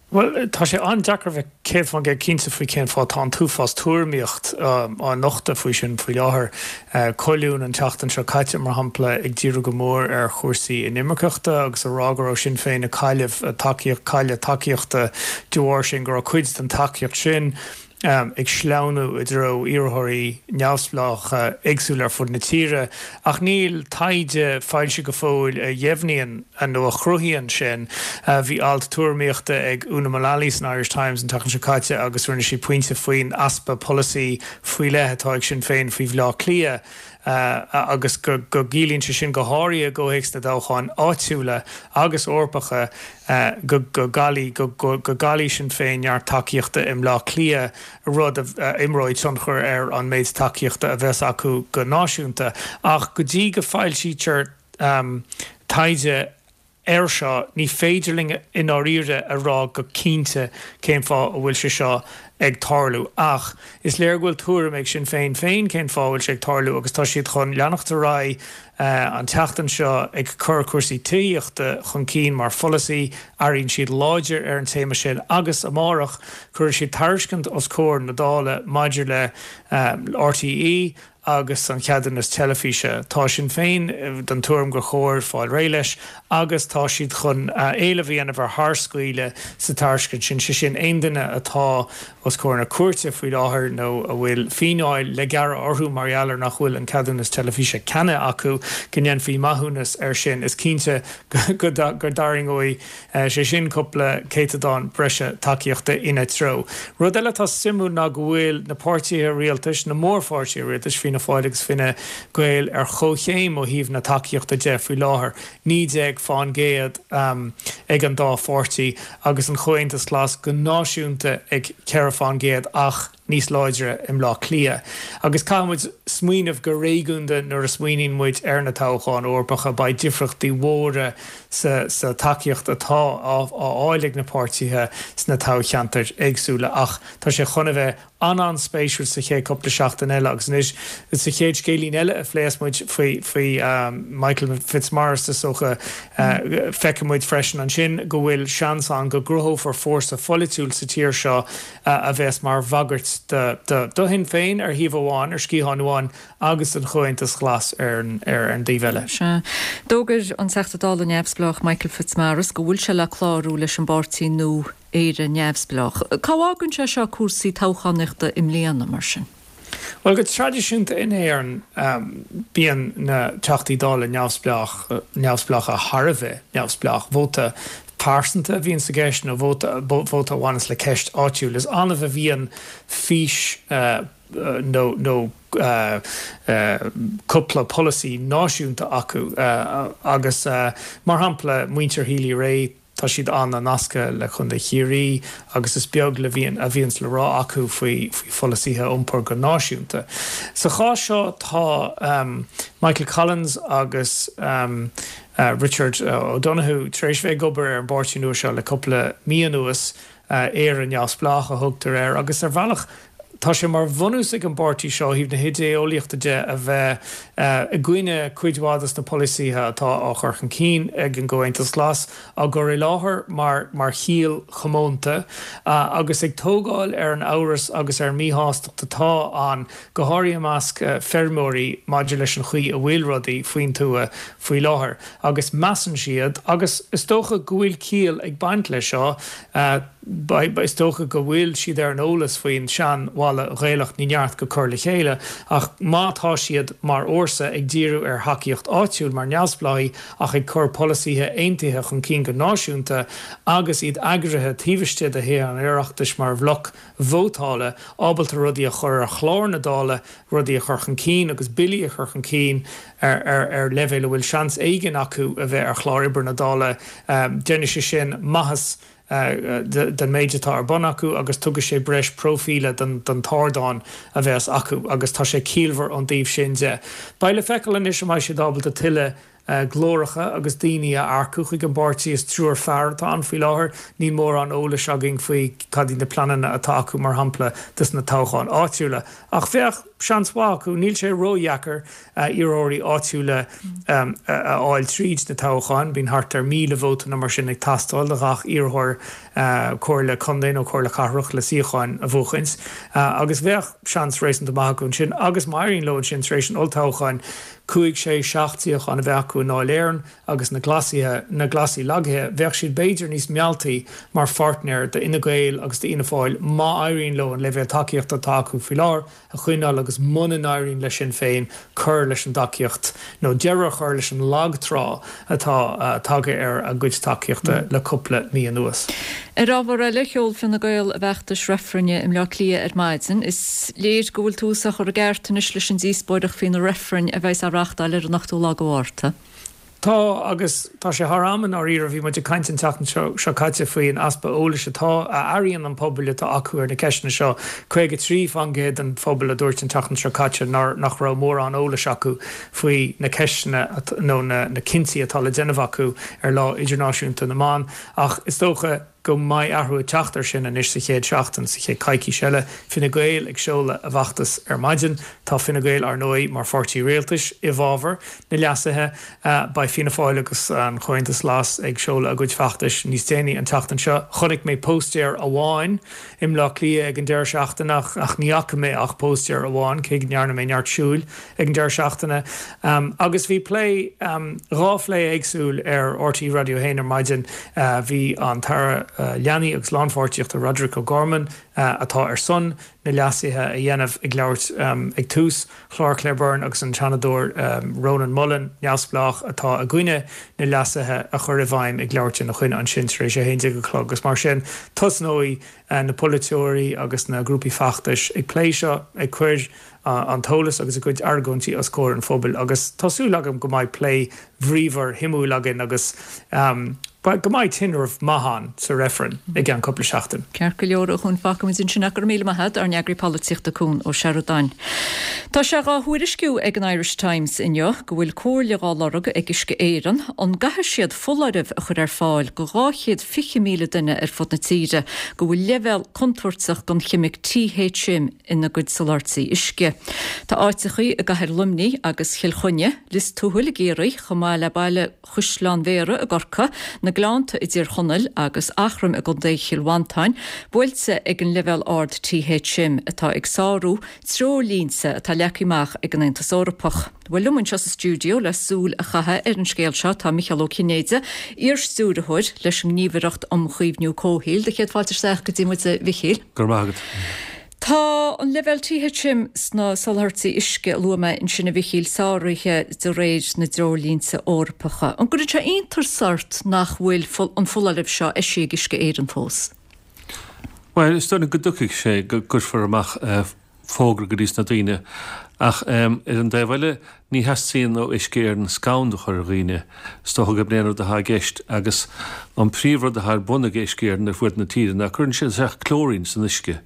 Bhuel, tá sé an-deacair a bheith 100% cinnte faoi cén fáth. Tá an t-uafás tuairimíocht á nochtadh faoi sin faoi láthair. Colún an tseachtain seo caite, mar shampla, ag díriú go mór ar chúrsaí inimirceachta agus a rá go raibh Sinn Féin ag cailleadh tacaíocht, cailleadh tacaíochta de bharr sin, go raibh cuid den tacaíocht sin ag sleamhnú i dtreo iarrthóirí neamhspleácha éagsúla ar fud na tíre, ach níl taighde foilsithe go fóill a dheimhníonn nó a chruthaíonn sin. Bhí alt tuairimíochta ag Una Mullally san Irish Times an tseachtain seo caite agus rinne sí pointe faoin easpa polasaí faoi leith atá ag Sinn Féin faoi Bhleá Cliath agus go gciallaíonn sé sin, go háirithe i gcomhthéacs na dtoghcháin áitiúla agus Eorpacha, go gcaillfidh Sinn Féin neart tacaíochta i mBleá Cliath, rud a imreoidh tionchar ar an méid tacaíochta a bheas acu go náisiúnta. Ach go dtí go foilsítear taighde air seo, ní féidir linn i ndáiríre a rá go cinnte cén fáth a bhfuil sé seo ag tarlú. Ach is léir go bhfuil tuairim ag Sinn Féin féin cén fáth a bhfuil sé ag tarlú agus tá siad chun leanacht ar aghaidh an tseachtain seo ag cur cúrsaí tithíochta chun cinn mar pholasaí. Airíonn siad láidir ar an téama sin agus amárach cuirfidh siad tairiscint os comhair na Dála maidir le RTÉ agus an ceadúnas teilifíse. Tá Sinn Féin den tuairim gur chóir fáil réidh leis agus tá siad chun éileamh a dhéanamh ar tharscaoileadh sa tairiscint sin, sé sin aon duine atá os comhair na cúirte faoi láthair nó a bhfuil fíneáil le gearradh orthu mar gheall ar nach bhfuil an ceadúnas teilifíse ceannaithe acu, go ndéanfaí maithiúnas air sin. Is cinnte go dtarraingeoidh sé sin cúpla céatadán breise tacaíochta ina treo. Rud eile atá suimiúil ná go bhfuil na páirtithe rialtais, na mórpháirtithe rialtais, Fianna Fáil agus Fine Gael, ar chomhchéim ó thaobh na tacaíochta de faoi láthair, 19 fán gcéad ag an dá pháirtí, agus an Chomhaontas Glas go náisiúnta ag 4 fán gcéad ach níos láidre i mBleá Cliath. Agus caithfidh muid smaoineamh go réigiúnda nuair a smaoiníonn muid ar na toghcháin Eorpacha, beidh difríochtaí mhóra sa sa tacaíocht atá á fháil ag na páirtithe sna toghcheantair éagsúla. Ach tá sé chun a bheith an-an-spéisiúil sa chéad cúpla seachtain eile agus anois sa chéad scéilín eile a phléas muid faoi faoi Michael Fitzmaurice is dócha feicfidh muid freisin ansin go bhfuil seans ann go gcruthófar fórsa pholaitiúil sa tír seo a bheas mar bhagairt do Shinn Féin ar thaobh amháin, ar sciathán amháin, agus don Chomhaontas Glas ar an dtaobh eile. Sea. D'fhógair an Teachta Dála neamhspleách Michael Fitzmaurice go bhfuil sé le clárú leis an bpáirtí nua Éire Neamhspleách. Cá bhfágann sé seo cúrsaí toghchánaíochta i mbliana, mar sin? Bhuel, go traidisiúnta in Éirinn, bíonn na Teachtaí Dála neamhspleácha thar a bheith neamhspleách. Vóta pearsanta a bhíonn sa gceist nó vóta vóta a bhaineas le ceist áitiúil. Is annamh a bhíonn fís nó nó cúpla polasaí náisiúnta acu agus, mar shampla, muintir Healy-Rae, Tá siad an-nasctha le Contae Chiarraí agus is beag le bhíonn a bhíonns le rá acu faoi faoi pholasaithe iompair go náisiúnta. Sa chás seo tá Michael Collins agus Richard O'Donoghue tar éis bheith ag obair ar an bpáirtí nua seo le cúpla mí anuas, Éire Neamhspleách a thugtar air, agus ar bhealach. Tá sé mar bhunús ag an bpáirtí seo ó thaobh na hidé-eolaíochta de a bheith i gcoinne cuid mhaith dos na polasaithe atá á chur chun cinn ag an gComhaontas Glas, á gcur i láthair mar mar chiall chomónta agus ag tógáil ar an amhras agus ar an míshástacht atá ann, go háirithe i measc feirmeoirí, maidir leis an chaoi a bhfuil rudaí faoin tuath faoi láthair. Agus measann siad, agus is dócha go bhfuil ciall ag baint leis seo, Is dócha go bhfuil siad ar an eolas faoin sean-mhalla Ghaelach 'ní neart go cur le chéile' ach má tá siad mar fhórsa ag díriú ar thacaíocht áitiúil mar neamhspleáigh ach ag cur polasaithe aontaithe chun cinn go náisiúnta agus iad eagraithe taobh istigh de Thithe an Oireachtais mar bhloc vótála ábalta rudaí a chur ar chlár na Dála, rudaí a chur chun cinn agus billí a chur chun cinn ar leibhéal a bhfuil seans éigin acu a bheith ar chlár oibre na Dála, déanfaidh sé sin maitheas den méid atá ar bun acu agus tugfaidh sé breis próifíle don t-ardán a bheas acu agus tá sé ciallmhar ón dtaobh sin de. Beidh le feiceáil anois an mbeidh siad ábalta tuilleadh glóracha agus daoine a earcú chuig an bpáirtí. Is triúr fear atá ann faoi láthair. Níl mórán eolais againn faoi cad iad na pleananna atá acu, mar shampla, dos na toghcháin áitiúla. Ach bheadh seans mhaith acu. Níl sé ródheacair iarrthóirí áitiúla a fháil tríd na toghcháin. Bíonn thart ar 1,000 vóta nó mar sin ag teastáil do ghach iarrthóir comhairle contae nó comhairle cathrach le suíocháin a bhuachaint. Agus bheadh seans réasúnta maith acu ansin. Agus má éiríonn leo ansin tar éis an olltoghcháin, cúig, sé, seacht suíochán a bheith acu i nDáil Éireann agus na Glasaithe, na Glasaigh lagaithe, bheadh siad b'fhéidir níos mealltaí mar pháirtnéir d'Fhine Gael agus d'Fhianna Fáil má éiríonn leo an leibhéal tacaíochta atá acu faoi láthair a choinneáil agus muna n-éiríonn le Sinn Féin cur leis an dtacaíocht nó deireadh a chur leis an lag trá atá tagtha ar a gcuid tacaíochta le cúpla mí anuas. Ar ábhar eile, sheol Fine Gael a bhfeachtas reifrinne i mBleá Cliath ar maidin. Is léir go bhfuil tús á chur i gceart anois leis an díospóireacht faoi na reifrinn a bheas á reáchtáil ar an ochtú lá de Mhárta. Tá, agus tá sé thar am i ndáiríre. Bhí muid ag caint an tseachtain seo caite faoi an easpa eolais atá, a airíonn an pobal atá acu ar na ceisteanna seo. 53% den phobal a dúirt an tseachtain seo caite nár, nach raibh mórán eolais acu faoi na ceisteanna nó na cinntí atá le déanamh acu ar Lá Idirnáisiúnta na mBan. Ach is dócha go mbeidh athrú ag teacht air sin anois sa chéad seachtain, sa chéad coicís eile. Fine Gael ag seoladh a bhfeachtas ar maidin. Tá Fine Gael, ar ndóigh, mar pháirtí rialtais i bhfabhar na leasuithe. Beidh Fianna Fáil agus an Comhaontas Glas ag seoladh a gcuid feachtais níos déanaí an tseachtain seo. Chonaic mé póstaer amháin i mBleá Cliath ag an deireadh seachtaine ach ní fhaca mé ach póstaer amháin, cé go ndearna mé neart siúil. ag an deireadh seachtaine agus bhí plé, 2 phlé éagsúil ar RTÉ Raidió 1 ar maidin. Bhí an tAire Leanaí agus Lánpháirtíochta Roderic O'Gorman, atá ar son na leasuithe a dhéanamh, ag labhairt ag tús chlár Claire Byrne agus an Seanadóir Rónán Mullen, neamhspleách, atá i gcoinne na leasuithe a chur i bhfeidhm ag labhairt ina choinne ansin tar éis 11 a chlog agus mar sin tosnóidh na polaiteoirí agus na grúpaí feachtais ag plé seo, ag cur an t-eolas agus a gcuid argóintí os comhair an phobail agus tá súil agam go mbeidh plé bríomhar shuimiúil againn agus go mbeidh tinreamh maith ann sa reifreann i gceann cúpla seachtain. Ceart go leor, a Chúin, fágfaimid ansin é. Go raibh míle maith agat, ár n-eagraí polaitíochta Cún Ó Seireadáin. Tá sé dhá thuairisciú ag an Irish Times inniu go bhfuil comhairle dhá lorg ag Uisce Éireann an gcaithfidh siad foláireamh a chur ar fáil go 220,000 duine ar fud na tíre go bhfuil leibhéal contúirteach den cheimic THM ina gcuid soláthairtí uisce. Tá áiteachaí i gcathair Luimnigh agus Chill Chainnigh, Lios Tuathail i gCiarraí, chomh maith le baile Chaisleán Bhéarra i gCorcaigh, na Gleannta i dTír Chonaill agus Eachroim i gContae Chill Mhantáin, buailte ag an leibhéal ard THM atá ag sárú treoirlínte atá leagtha amach ag an Aontas Eorpach. Bhuel, liom anseo sa stiúideo le súil a chaitheamh ar an scéal seo tá Micheál Ó Cinnéide, iar-stiúrthóir leis an nGníomhaireacht um Chaomhnú Comhshaoil. Do chéad fáilte isteach go dtí muid, a Mhichíl. Go raibh maith agat. Tá an leibhéal THM sna soláthairtí uisce a luaigh mé ansin, a Mhichíl, sáraithe de réir na dtreoirlínte Eorpacha. An gcuireann sé iontas ort nach bhfuil an foláireamh seo eisithe ag Uisce Éireann fós? Bhuel, is dóigh liom go dtiocfaidh sé, go gcuirfear amach fógra go dtí sna daoine. Ach ar an dtaobh eile, ní theastaíonn ó Uisce Éireann scanradh a chur ar dhaoine. Is dócha gurb in é an rud atá i gceist. Agus an príomhrud atá ar bun ag Uisce Éireann ar fuaid na tíre ná cuireann siad isteach clóirín san uisce.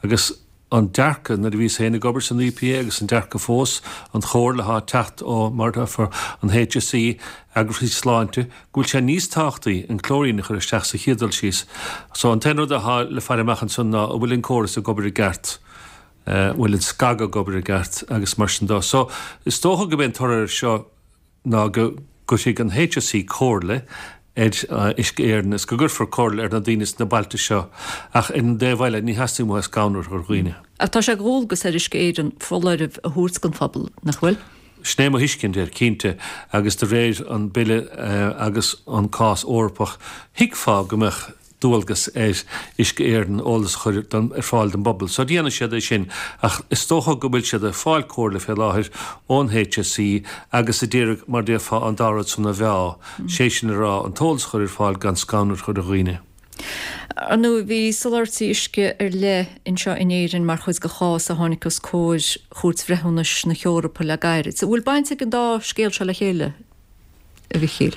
Agus an dearcadh, nuair a bhíos féin ag obair san EPA agus an dearcadh fós, an chomhairle atá ag teacht ó, mar atá, an HSE, eagraíochtaí sláinte, go bhfuil sé níos tábhachtaí an clóirín a chur isteach sa chéad dul síos. So an t-aon rud atá le faire amach ansan ná an bhfuil an córas ag obair i gceart. Bhfuil an scagadh ag obair i gceart agus mar sin dó. So, is dócha go b'é an toradh air seo ná go gcuirfidh an HSE comhairle ar Uisce Éireann is go gcuirfear comhairle ar na daoine sna bailte seo ach ar an dtaobh eile ní theastaíonn uathu scanrú a chur ar dhaoine. Ach tá sé de dhualgas ar Uisce Éireann foláireamh a thabhairt don phobal, nach bhfuil? Sin é mo thuiscint air, cinnte, agus de réir an Bille agus an cás Eorpach, thuigfeá go mbeadh dualgas ar Uisce Éireann eolas a chur ar fáil don bpobal. So déanfaidh siad é sin ach is dócha go bhfuil siad ag fáil comhairle fé láthair ón HSE agus a d'iarraidh mar déarfá an dá rud san a mheá, sé sin a rá an t-eolas a chur ar fáil gan scanrú a chur ar dhaoine. Ar ndóigh, bhí soláthairtí uisce ar leith anseo in Éirinn mar chuid de chás a tháinig os comhair Chúirt Bhreithiúnais na hEorpa le gairid. An bhfuil baint ag an dá scéal seo le chéile? a Mhichíl.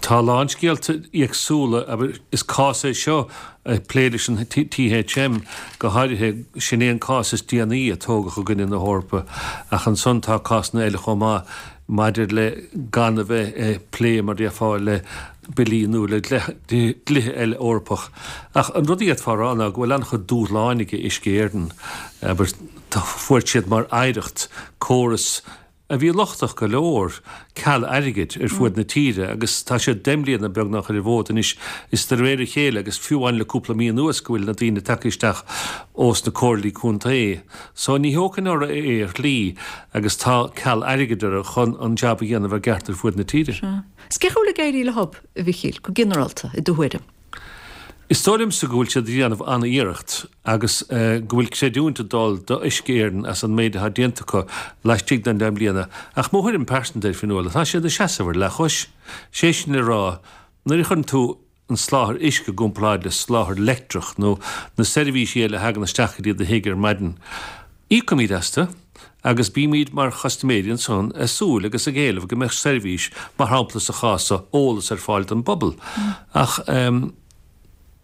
Tá a lán scéalta éagsúla, abair, is cás é seo ag plé leis an THM go háirithe, sin é an cás is déanaí a tógadh i gcoinne na hEorpa, ach ansan tá cásanna eile chomh maith maidir le gan a bheith ag plé, mar déarfá, le billí nó le dlíthe eile Eorpach. Ach an rud a d'fhéadfá a rá ná go bhfuil an-chuid dúshláin ag Uisce Éireann, abair, fuair siad mar oidhreacht córas a bhí lochtach go leor, ceal airgid ar fuaid na tíre agus tá siad 10 mbliana beagnach ar an bhfód anois is de réir a chéile agus fiú amháin le cúpla mí anuas go bhfuil na daoine tagtha isteach ós na comhairlí contae. So ní thógfainn orthu é ar shlí agus tá ceal airgid orthu chun an jab a dhéanamh i gceart ar fuaid na tíre. Sea. Is cén chaoi a bhfuil ag éirí leo, a Mhichíl, go ginearálta, i do thuairim? Is dóigh liomsa go bhfuil siad ag déanamh an-iarracht agus go bhfuil creidiúint ag dul do Uisce Éireann as an méid atá déanta acu laistigh den 10 mbliana ach mo thuairim pearsanta air, Fionnuala, tá siad ag seasamh ar leathchois. Sé sin le rá, nuair a chuireann tú an soláthar uisce i gcomparáid le soláthar leictreach nó na seirbhísí eile a thagann isteach go dtí do thigh ar maidin, íocaimid astu agus bímid mar chustaiméirí ansan ag súil agus ag éileamh go mbeadh seirbhís, mar shampla sa chás so, eolas ar fáil don bpobal. Ach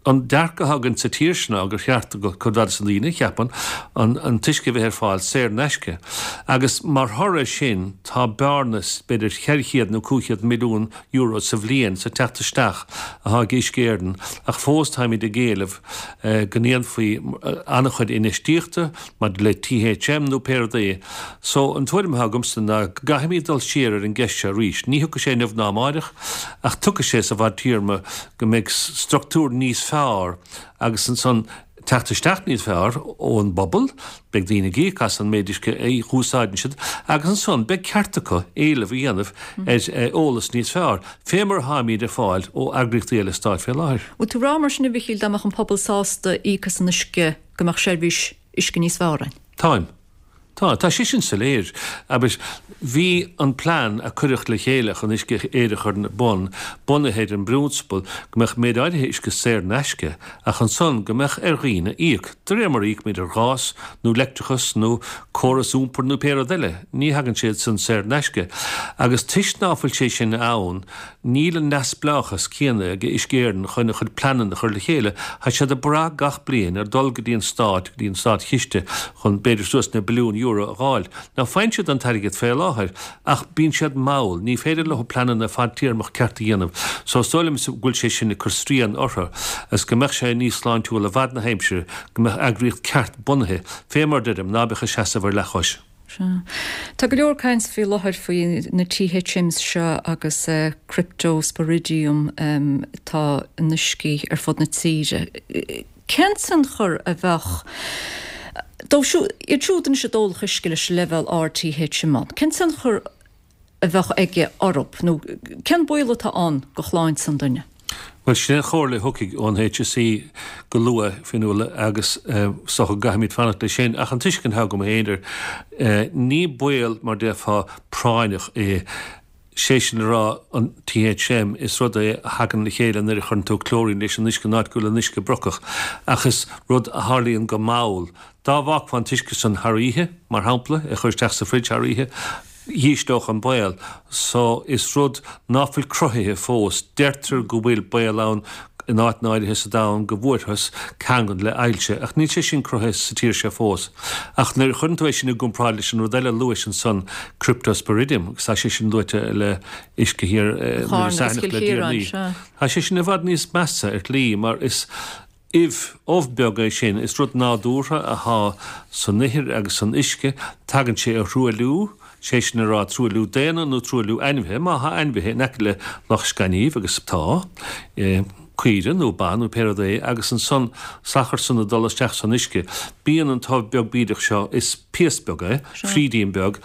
an dearcadh atá againn sa tír seo ná gur cheart do chuid mhaith de na daoine, cheapfainn, an t-uisce a bheith ar fáil saor in aisce. Agus mar thoradh air sin tá bearna b'fhéidir 400 nó 500 milliún euro sa bhliain sa teacht isteach atá ag Uisce Éireann ach fós táimid ag éileamh go ndéanfaí an-chuid infheistíochta maidir le THM nó pé rud é. So, an tuairim atá agamsa ná go gcaithfimid dul siar ar an gceist seo arís. Ní thiocfaidh sé inniu ná amáireach ach tiocfaidh sé sa bhfadtéarma go mbeidh structúr níos fearr agus ansan teacht isteach níos fearr ón bpobal, beidh daoine ag íoc as an méid uisce a úsáideann siad agus ansan beidh ceart acu éileamh a dhéanamh ar eolas níos fearr, fé mar atáimid ag fáil ó eagraíochtaí eile stáit fé láthair. Bhfuil tú ag rá mar sin a Mhichíl dá mbeadh an pobal sásta íoc as an uisce go mbeadh seirbhís uisce níos fearr ann? Táim. Tá, tá sé sin soiléir. Abair, bhí an plean a cuireadh le chéile chun Uisce Éireann a chur ar bun bunaithe ar an bprionsabal go mbeadh méid áirithe uisce saor in aisce ach ansan go mbeadh ar dhaoine íoc, de réir mar a íocaimid ar ghás nó leictreachas nó córas iompair nó pé rud eile. Ní thagann sé san saor in aisce. Agus toisc ná fuil sé sin ann, Níl an neamhspleáchas céanna ag Uisce Éireann chun a chuid pleananna a chur le chéile. Tá siad ag brath gach bliain ar dul go dtí an stát, go dtí an státchiste chun b'fhéidir suas le billiún euro a dh'fháil. Now faigheann siad an t-airgead fé láthair ach bíonn siad mall, ní féidir leo pleananna fadtéarmach ceart a dhéanamh. So is dóigh liom go bhfuil sé sin ag cur srian orthu agus go mbeadh sé níos sláintiúla i bhfad na haimsire go mbeadh eagraíocht ceart bunaithe, fé mar deirim, ná beadh ag seasamh ar leathchois. Sea. Tá go leor caint faoi láthair faoi na THMs seo agus Cryptosporidium atá in uiscí ar fud na tíre. Cén tionchar a bheadh dóibh siúd, iad siúd anois a d'ólfadh uisce leis an leibhéal ard THM ann, cén tionchar a bheadh aige orthu nó cén baol atá ann do shláinte an duine? Bhuel, sin é an chomhairle a thiocfaidh ón HSE go luath, Fionnuala, agus is dócha go gcaithfimid fanacht leis sin. Ach an tuiscint atá agam féin air, ní baol, mar déarfá, práinneach é. Sé sin le rá, an THM, is rud é a thagann le chéile nuair a chuireann tú clóirín leis an uisce in áit go bhfuil an uisce brocach. Ach is rud a tharlaíonn go mall. Dá bhfágfá an t-uisce san thar oíche, mar shampla, é a chur isteach sa fridge thar oíche, dhísleodh an baol. So, is rud ná fuil cruthaithe fós. Deirtear go bhfuil baol ann in áiteanna áirithe sa domhan go bhfuarthas ceangal le ailse, ach níl sé sin cruthaithe sa tír seo fós. Ach nuair a chuireann tú é sin i gcomparáid leis an rud eile a luais ansan, Cryptosporidium, agus tá sé sin luaite le uisce thiar Charna agus Chill Chiaráin, tá sé sin i bhfad níos measa ar shlí mar is. Ubh, ubh beag é sin. Is rud nádúrtha athá san ithir agus san uisce. Tagann sé ó thruailliú, sé sin a rá truailliú daonna nó truailliú ainmhithe, má thá ainmhithe in aice le loch scainnimh, agus tá, caoire nó ba nó pé rud é, agus ansan salachar san ag dul isteach san uisce. Bíonn an t-ubh beag bídeach seo, is piast beag é, frídín beag,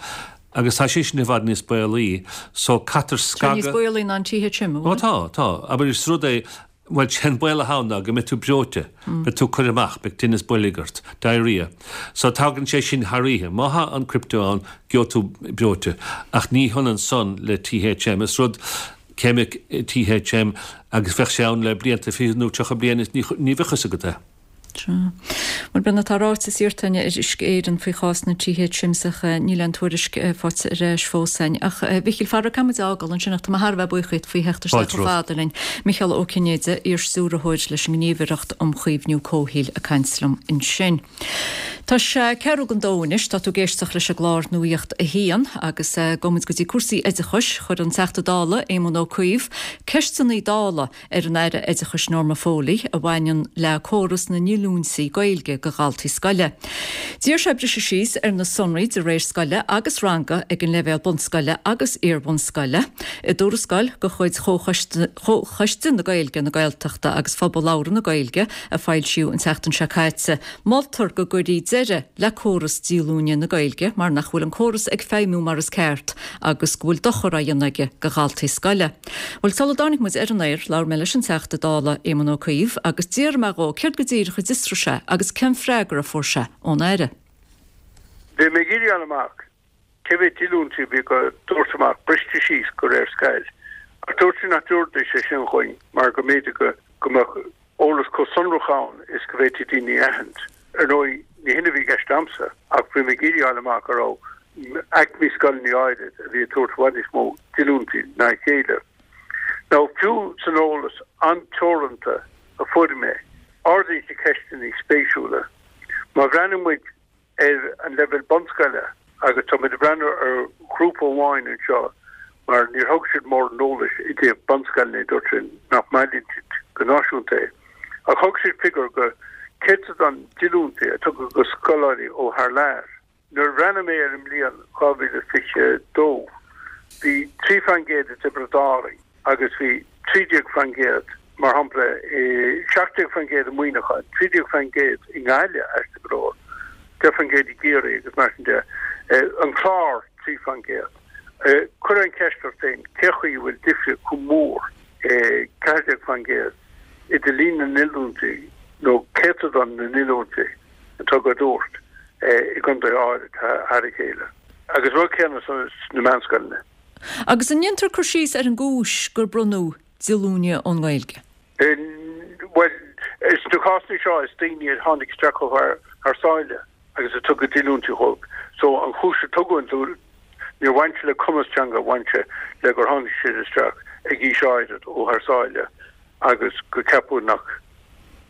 agus tá sé sin i bhfad níos baolaí, so caitear scagadh. Tá níos baolaí ná an THM, an bhfuil? Ó tá, tá. Abair is rud é, bhuel sé an baol atá ann ná go mbeidh tú breoite, beidh tú curtha amach, beidh tinneas boilg ort, diarrhea. So tagann sé sin thar oíche. Má thá an crypto ann, gheobhaidh tú breoite. Ach ní hionann san le THM. Is rud ceimic THM agus bheadh sé ann le blianta, 20 nó 30 bliain is ní bheadh fhios agat é. Sea. Bhuel, b'in atá ráite is iarrta againn ar Uisce Éireann faoi chás na THMs ach níl aon tuairisc faighte ar ais fós againn. Ach, a Mhichíl, faraor caithfidh muid a fhágáil ansin ach tá mé thar a bheith buíoch díot faoi theacht isteach chomh fada linn. Micheál Ó Cinnéide, iar-stiúrthóir leis an nGníomhaireacht um Chaomhnú Comhshaoil ag caint liom ansin. Tá sé ceathrú don dó anois, tá tú ag éisteacht leis an gclár Nuacht a hAon agus gabhfaidh muid go dtí cúrsaí oideachais. Chuir an Teachta Dála, Éamon Ó Cuív, ceisteanna Dála ar an Aire Oideachais Norma Foley a bhaineann le córas na ndíolúintí Gaeilge do dhaltaí scoile. D'iarr sé briseadh síos ar na sonraí de réir scoile agus ranga ag an leibhéal bunscoile agus iar-bhunscoile. I dtuarascáil de chuid Chomhchoiste na Gaeilge, na Gaeltachta agus Phobal Labhartha na Gaeilge a foilsíodh an tseachtain seo caite, Moltar go gcuirfí deireadh le córas díolúine na Gaeilge mar nach bhfuil an córas ag feidhmiú mar is ceart agus go bhfuil dochar á dhéanamh aige do dhaltaí scoile. Bhuel, sula dtáinig muid ar an aer, labhair mé leis an Teachta Dála Éamon Ó Cuív agus d'fhiafraigh mé dhó céard go díreach a d'fhiosraigh sé agus cén freagra a fuair sé ón Aire. Bhí mé ag iarraidh a fháil amach cé mhéad díolúintí a bhí á dtabhairt amach briste síos de réir scoil ach dúirt siad nach dtabharfaidís é sin chugainn mar go mb'fhéidir go mbeadh eolas chomh sonrach ann is go bhféadfaí daoine a aithint. Ar ndóigh, ní hin a bhí i gceist a'msa ach bhí mé ag iarraidh a fháil amach an raibh aicmí scoileanna áirid a bhí ag tabhairt i bhfad níos mó díolúintí ná a chéile. Now, fiú san eolas an-teoranta a fuair mé, ardaíonn sé ceisteanna spéisiúla. Má bhreathnaíonn muid ar an leibhéal bunscoile agus tá muid ag breathnú ar ghrúpa amháin anseo mar níor thug siad mórán eolais i dtaobh bunscoileanna, dúirt siad nach mbailíonn siad go náisiúnta é. Ach thug siad figiúr go céatadán díolúintí a tugadh go scoláirí ó thar lear. Nuair a bhreathnaigh mé ar an mbliain 2022 bhí 3% i dTiobraid Árann agus bhí 13%, mar shampla, 17% i Muineachán, 13% i nGaillimh, aisteach go leor, 10% i gCiarraí agus mar sin de. An Clár, 3%. Cuir an cheist ort féin, cé chaoi a bhfuil difríocht chomh mór, 14%, idir líon na ndíolúintí nó céatadán na ndíolúintí atá á dtabhairt i gcontaetha áirid thar a chéile? Agus rud céanna sna meánscoileanna. Agus an ndéantar cur síos ar an gcúis gur bronnadh díolúine ón nGaeilge? Bhuel, sna cásanna seo is daoine a tháinig isteach ó thar sáile agus a tugadh díolúintí dhóibh. So an chúis a tugadh an díolúine, níor bhain sé le cumas teanga, bhain sé le gur tháinig siad isteach ag aois áirid ó thar sáile agus go ceapadh nach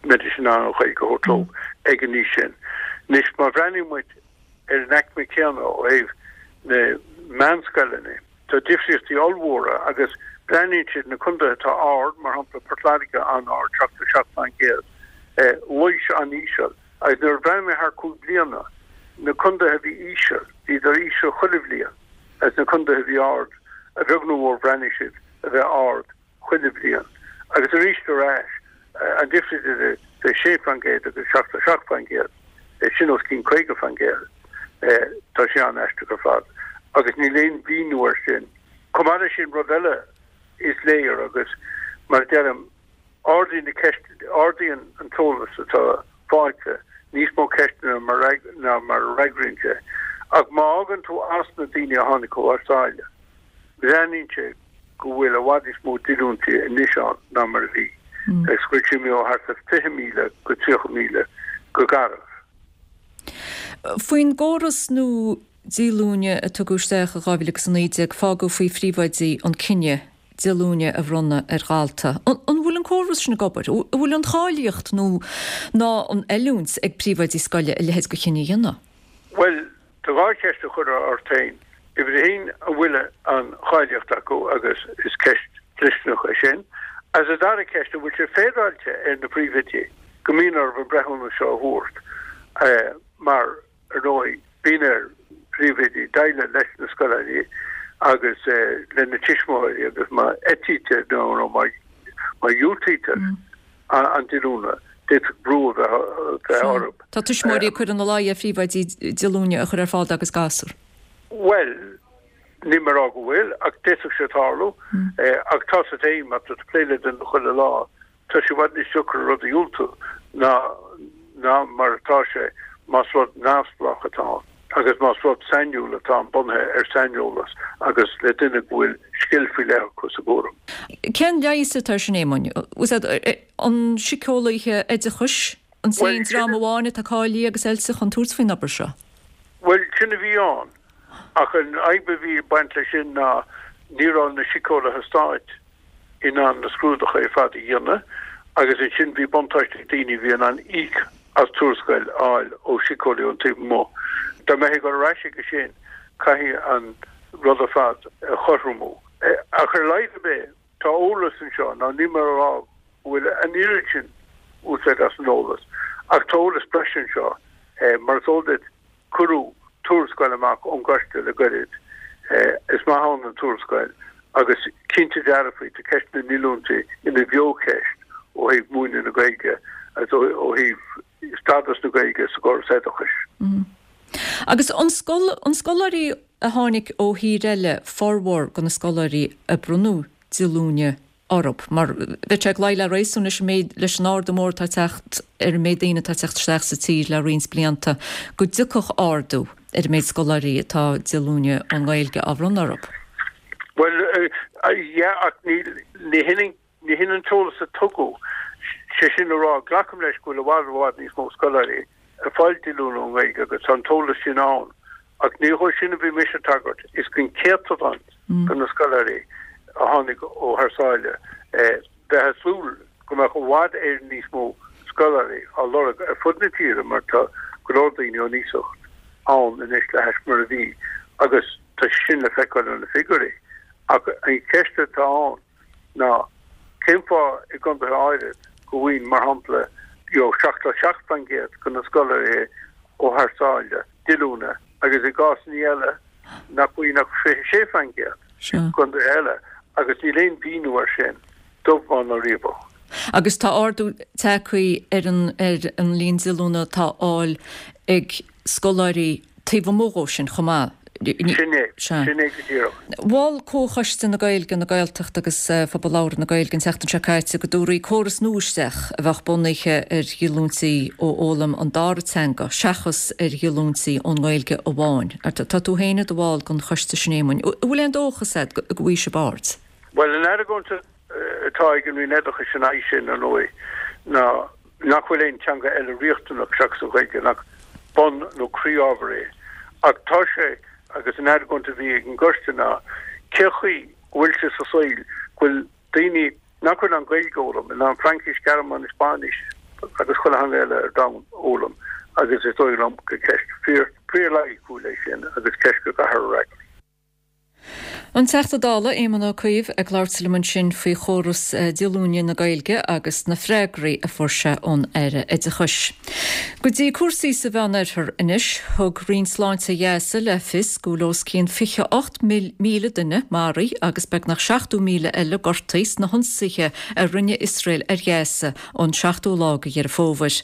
mbeidís in ann an Ghaeilge a thabhairt leo ag an aois sin. Anois, má bhreathnaíonn muid ar an aicme céanna ó thaobh na meánscoileanna. Tá difríochtaí ollmhóra agus breathnaíonn siad na contaetha atá ard, mar shampla Port Láirge an-ard, 77%, Laois an-íseal, agus nuair a bhreathnaigh mé thar 5 bliana, na contaetha a bhí íseal, bhíodar íseal chuile bhliain, agus na contaetha a bhí ard, a bheag nó a mhór bhreathnaigh siad a bheith ard. chuile bhliain. Agus arís ar ais, an difríocht idir 6% agus 77%, sin os cionn 50%. Tá sé an-aisteach ar fad. Agus níl aon mhíniú air sin. Chomh maith leis sin, rud eile is léir agus, mar a deirim, ardaíonn na ceist, ardaíonn an t-eolas atá faighte níos mó ceisteanna ná mar a fhreagraíonn sé. Ach má fhágann tú as na daoine a tháinig ó thar sáile, Breathnaíonn sé go bhfuil i bhfad níos mó díolúintí anois ann ná mar a bhí, agus go bhfuil sé imithe ó thart ar 20,000 go 30,000 go garbh. Faoin gcóras nua díolúine a tugadh isteach i 2019, fágadh faoi phríomhoidí an cinneadh díolúine a bhronnadh ar dhalta. An bhfuil an córas sin ag obair? An bhfuil an cháilíocht nó ná an oiliúint ag príomhoidí scoile a leithéid de chinneadh a dhéanamh? Bhuel, Tá dhá cheist a chur ort féin. Uimhir a haon, an bhfuil an cháilíocht acu agus is ceist dlisteanach é sin. Agus an dara ceist, an bhfuil sé féaráilte ar na príomhoidí? go mbíonn orthu an breithiúnas seo a thabhairt mar, ar ndóigh, bíonn ar phríomhoidí déileáil leis na scoláirí agus lena dtuismitheoirí agus má eitítear nó má dhiúltaítear an díolúine, d'fhéadfadh brú a bheith orthu. Tá tuismitheoirí ag cur ina luí ar phríomhoidí díolúine a chur ar fáil dá gcuid gasúr. Bhuel, níl mé ag rá go bhfuil, ach d'fhéadfadh sé tarlú. Ach tá a fhios agat féin, má tá tú ag plé le duine chuile lá, Tá sé i bhfad níos deacra rud a dhiúltú ná ná mar atá sé más rud neamhspleách atá ann agus más rud sainiúil atá ann bunaithe ar saineolas agus le duine go bhfuil scil faoi leith acu sa gcúram. Cén leigheas atá ar sin, Éamoinn? An síceolaithe oideachais an t-aon dream amháin atá cáilithe agus oilte chun tabhairt faoin obair seo? Bhuel, sin a bhí ann. Ach an fhadhb a bhí ag baint leis sin ná ní raibh na síceolaithe stáit in ann na scrúduithe ar fad a dhéanamh agus ansin bhí buntáiste ag daoine a bhí in ann íoc as tuarascáil a fháil ó shíceolaí ón taobh amuigh. Dá mbeifí ag dul ar ais chuige sin, caithfidh an rud ar fad a chothromú. Ach ar a laghad ar bith, tá eolas anseo, ná níl mé a rá go bhfuil an oiread sin úsáid as an eolas, ach tá eolas breise anseo. Mar is eol duit, Cuireadh tuarascáil amach ón gcoiste le goirid. Is maith ann an tuarascáil agus cinnte dearfa tá ceist na ndíolúintí ina bheocheist ó thaobh múineadh na Gaeilge agus ó thaobh stádas na Gaeilge sa gcóras oideachais. Agus an scoláirí a tháinig ó thír eile formhór de na scoláirí a bronnadh díolúine orthu, mar bheadh sé ag luí le réasún leis an méid, leis an ardú mór atá ag teacht ar an méid daoine atá ag teacht isteach sa tír le roinnt blianta, go dtiocfadh ardú ar an méid scoláirí atá díolúine ón nGaeilge á bhronnadh orthu. Bhuel, yeah, ach ní, ní hin, ní hin an t-eolas a tugadh. Sé sin le rá, glacaim leis go bhfuil i bhfad, i bhfad níos mó scoláirí ag fáil díolúine ón nGaeilge agus tá an t-eolas sin ann. Ach ní dhó sin a bhí mise ag tagairt, is don chéatadán de na scoláirí a tháinig ó thar sáile. Bheifeá ag súil go mbeadh i bhfad Éireann níos mó scoláirí á lorg ar fud na tíre mar tá go leor daoine ón iasacht ann anois le hais mar a bhí agus tá sé sin le feiceáil ó na figiúirí. Ach an cheist atá ann ná cén fáth i gcontaetha áirid go bhfaigheann, mar shampla, you know, 77% de na scoláirí ó thar sáile díolúine agus i gcásanna eile nach bhfaigheann ach 26% i gcontaetha eile agus níl aon mhíniú air sin, dubh bán ná riabhach. Agus tá ardú tagtha ar an ar an líon díolúine atá á fháil ag scoláirí taobh amuigh dhó sin chomh maith. Sin é. Sin é go díreach. Mhol Comhchoiste na Gaeilge, na Gaeltachta agus Phobal Labhartha na Gaeilge an tseachtain seo caite go dtabharfaí córas nua isteach a bheadh bunaithe ar dhíolúintí ó fhoghlaim an dara teanga seachas ar dhíolúintí ón nGaeilge amháin. Tá tú féin i do bhall den choiste sin, Éamoinn. An bhfuil aon dóchas agat go bhfaighidh sibh aird? Bhuel, an argóint atá ag an Roinn Oideachais ina aghaidh sin, ar ndóigh, ná nach bhfuil aon teanga eile riachtanach seachas an Ghaeilge, nach bun nó croí-ábhar é. Ach tá sé, agus an argóint a bhí ag an gcoiste ná, cé chaoi go bhfuil sé sa saol go bhfuil daoine nach bhfuil in ann Gaeilge a fhoghlaim, in ann Fraincis, Gearmáinis, Spáinnis agus chuile theanga eile ar domhan a fhoghlaim agus is dóigh liom gur ceist fíor, fíor-loighiciúil é sin agus ceist go gcaithfear a fhreagairt. An Teachta Dála Éamon Ó Cuív ag labhairt liom ansin faoi chóras díolúine na Gaeilge agus na freagraí a fuair sé ón Aire Oideachais. Go dtí cúrsaí sa Mheánoirthear anois. Thug Roinn Sláinte Ghaza le fios go bhfuil os cionn 28,000 duine maraithe agus beagnach 70,000 eile gortaithe sna hionsaithe a rinne Iosrael ar Ghaza ón seachtú lá de Dheireadh Fómhair.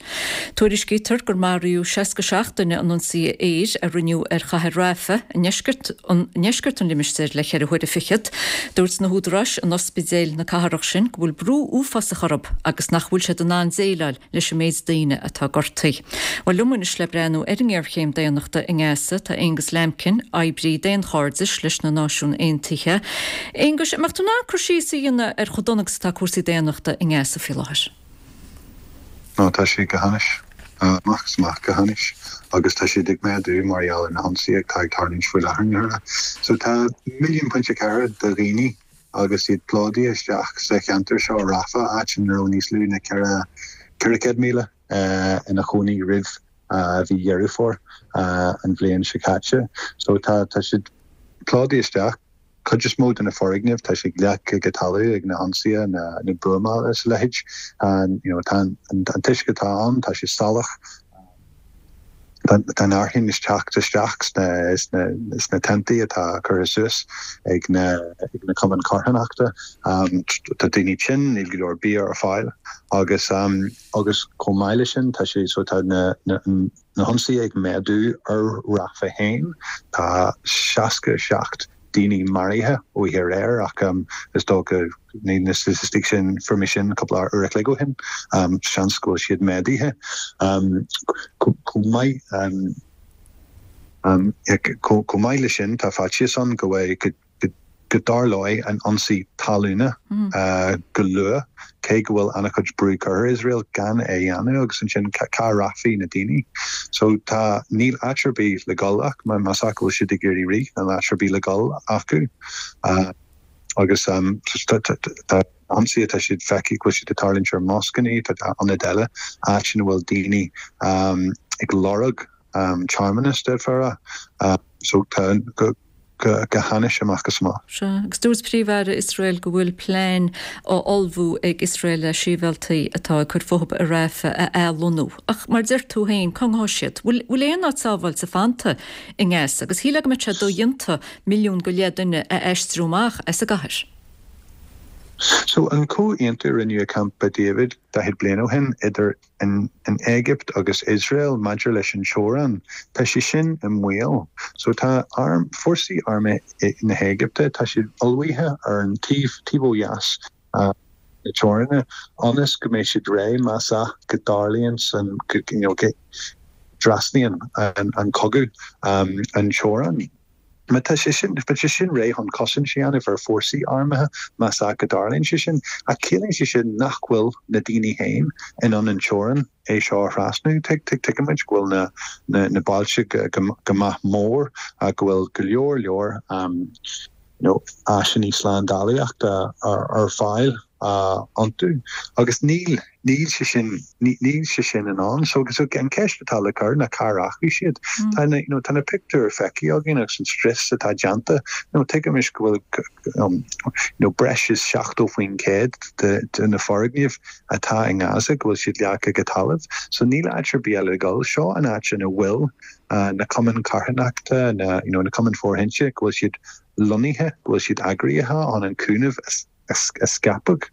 Tuairiscítear gur maraíodh 67 duine in ionsaithe aeir a rinneadh ar chathair Rafah i ndeisceart ndeisceart an limistéir le ceithre huaire fichead. Dúirt na húdaráis in ospidéil na cathrach sin go bhfuil brú uafásach orthu agus nach bhfuil siad in ann déileáil leis an méid daoine atá gortaithe. Bhuel, liom anois le breathnú ar an ngéarchéim daonnachta i nGaza tá Aonghus Lambkin, oibrí daonchairdis leis na Náisiúin Aontaithe. Aonghus, an mbeadh tú in ann cur síos a dhéanamh ar chomh dona agus atá cúrsaí daonnachta i nGaza faoi láthair? Ó, tá sé go hainnis. Amach is amach go hainnis. Agus tá siad ag méadú mar gheall ar na hionsaithe atá ag tarlúint faoi láthair. So tá milliún pointe ceathair de dhaoine agus iad plódaithe isteach sa cheantar seo, Rafah, áit ina raibh níos lú ná 400,000 ina chónaí roimh mhí Dheireadh Fómhair an bhliain seo caite. So tá siad plódaithe isteach. Cuid is mó de na foirgnimh, tá siad leagtha go talamh ag na hionsaithe, na buamála is a leithéid. You know, tá an t-uisce atá ann, tá sé salach. Tá an fhearthainn ag teacht isteach sna tentaí atá curtha suas ag na cumainn carthanachta. Tá daoine tinn, níl go leor bia ar fáil agus agus chomh maith leis sin tá sé so tá na na hionsaithe ag méadú ar Rafah féin. Tá 67 daoine maraithe oíche aréir ach is dócha níl na staitisticí sin, fuair mé sin cúpla uair a chloig ó shin, seans go bhfuil siad méadaithe. Chomh maith chomh maith leis sin tá faitíos ann go bhfuil go dtarlóidh an ionsaí talúna go luath, cé go bhfuil an-chuid brú curtha ar Iosrael gan é a dhéanamh agus ansin cá rachfaidh na daoine? So tá, níl áit ar bith le dhul ach más ea go bhfuil siad ag iarraidh rith, níl áit ar bith le dhul acu. Agus tá ionsaithe, tá siad feicthe go bhfuil siad ag tarlúint ar moscanna, tá ionaid eile, áit ina bhfuil daoine ag lorg tearmannas, d'fhéadfá a rá. So tá go go hainnis amach is amach. Sea, agus dúirt Príomh-Aire Iosrael go bhfuil plean á ullmhú ag Iosrael le sibhialtaigh atá ag cur fúthu i Rafah a athlonnú. Ach mar a deir tú féin, cá ngabhfaidh siad? Bhfuil aon áit sábháilte fanta i nGaza? Agus shílfeá go mbeadh sé dodhéanta milliún go leith duine a aistriú amach as an gcathair. So, an comhaontú a rinneadh i Campa David 40 bliain ó shin idir an Éigipt agus Iosrael maidir leis an teorainn, tá sé sin i mbaol. So tá arm, fórsaí armtha na hÉigipte, tá siad ullmhaithe ar an taobh, taobh ó dheas na teoranna ionas go mbeidh siad réidh más ea go dtarlaíonn san, go, you know, go dtrasnaíonn an cogadh an teorainn. Má tá sé sin, beidh sé sin réidh chun cosaint a dhéanamh ar fórsaí armtha más ea go dtarlaíonn sé sin. Ach ciallaíonn sé sin nach bhfuil na daoine féin in ann an teorainn é seo a thrasnú. Tuigimid go bhfuil na, na, na bailte go, go maith mór, go bhfuil go leor leor you know, áiseanna slándálaíochta ar, ar fáil iontu agus níl, níl sé sin, níl sé sin in ann. So, so an ceist atá le cur ná cá rachaidh siad? Tá na, you know, tá na pictiúir feicthe againn agus an scrios atá déanta. You know, tuigimis go bhfuil um, you know, breis is 70% de, de na foirgnimh atá i nGaza go bhfuil siad leagtha go talamh. So níl áit ar bith eile le dul. Seo an áit ina bhfuil uh, na cumainn carthanachta, na, you know, na cumainn fóirithinte, go bhfuil siad lonnaithe, go bhfuil siad eagraithe chun an cúnamh a scaipeadh.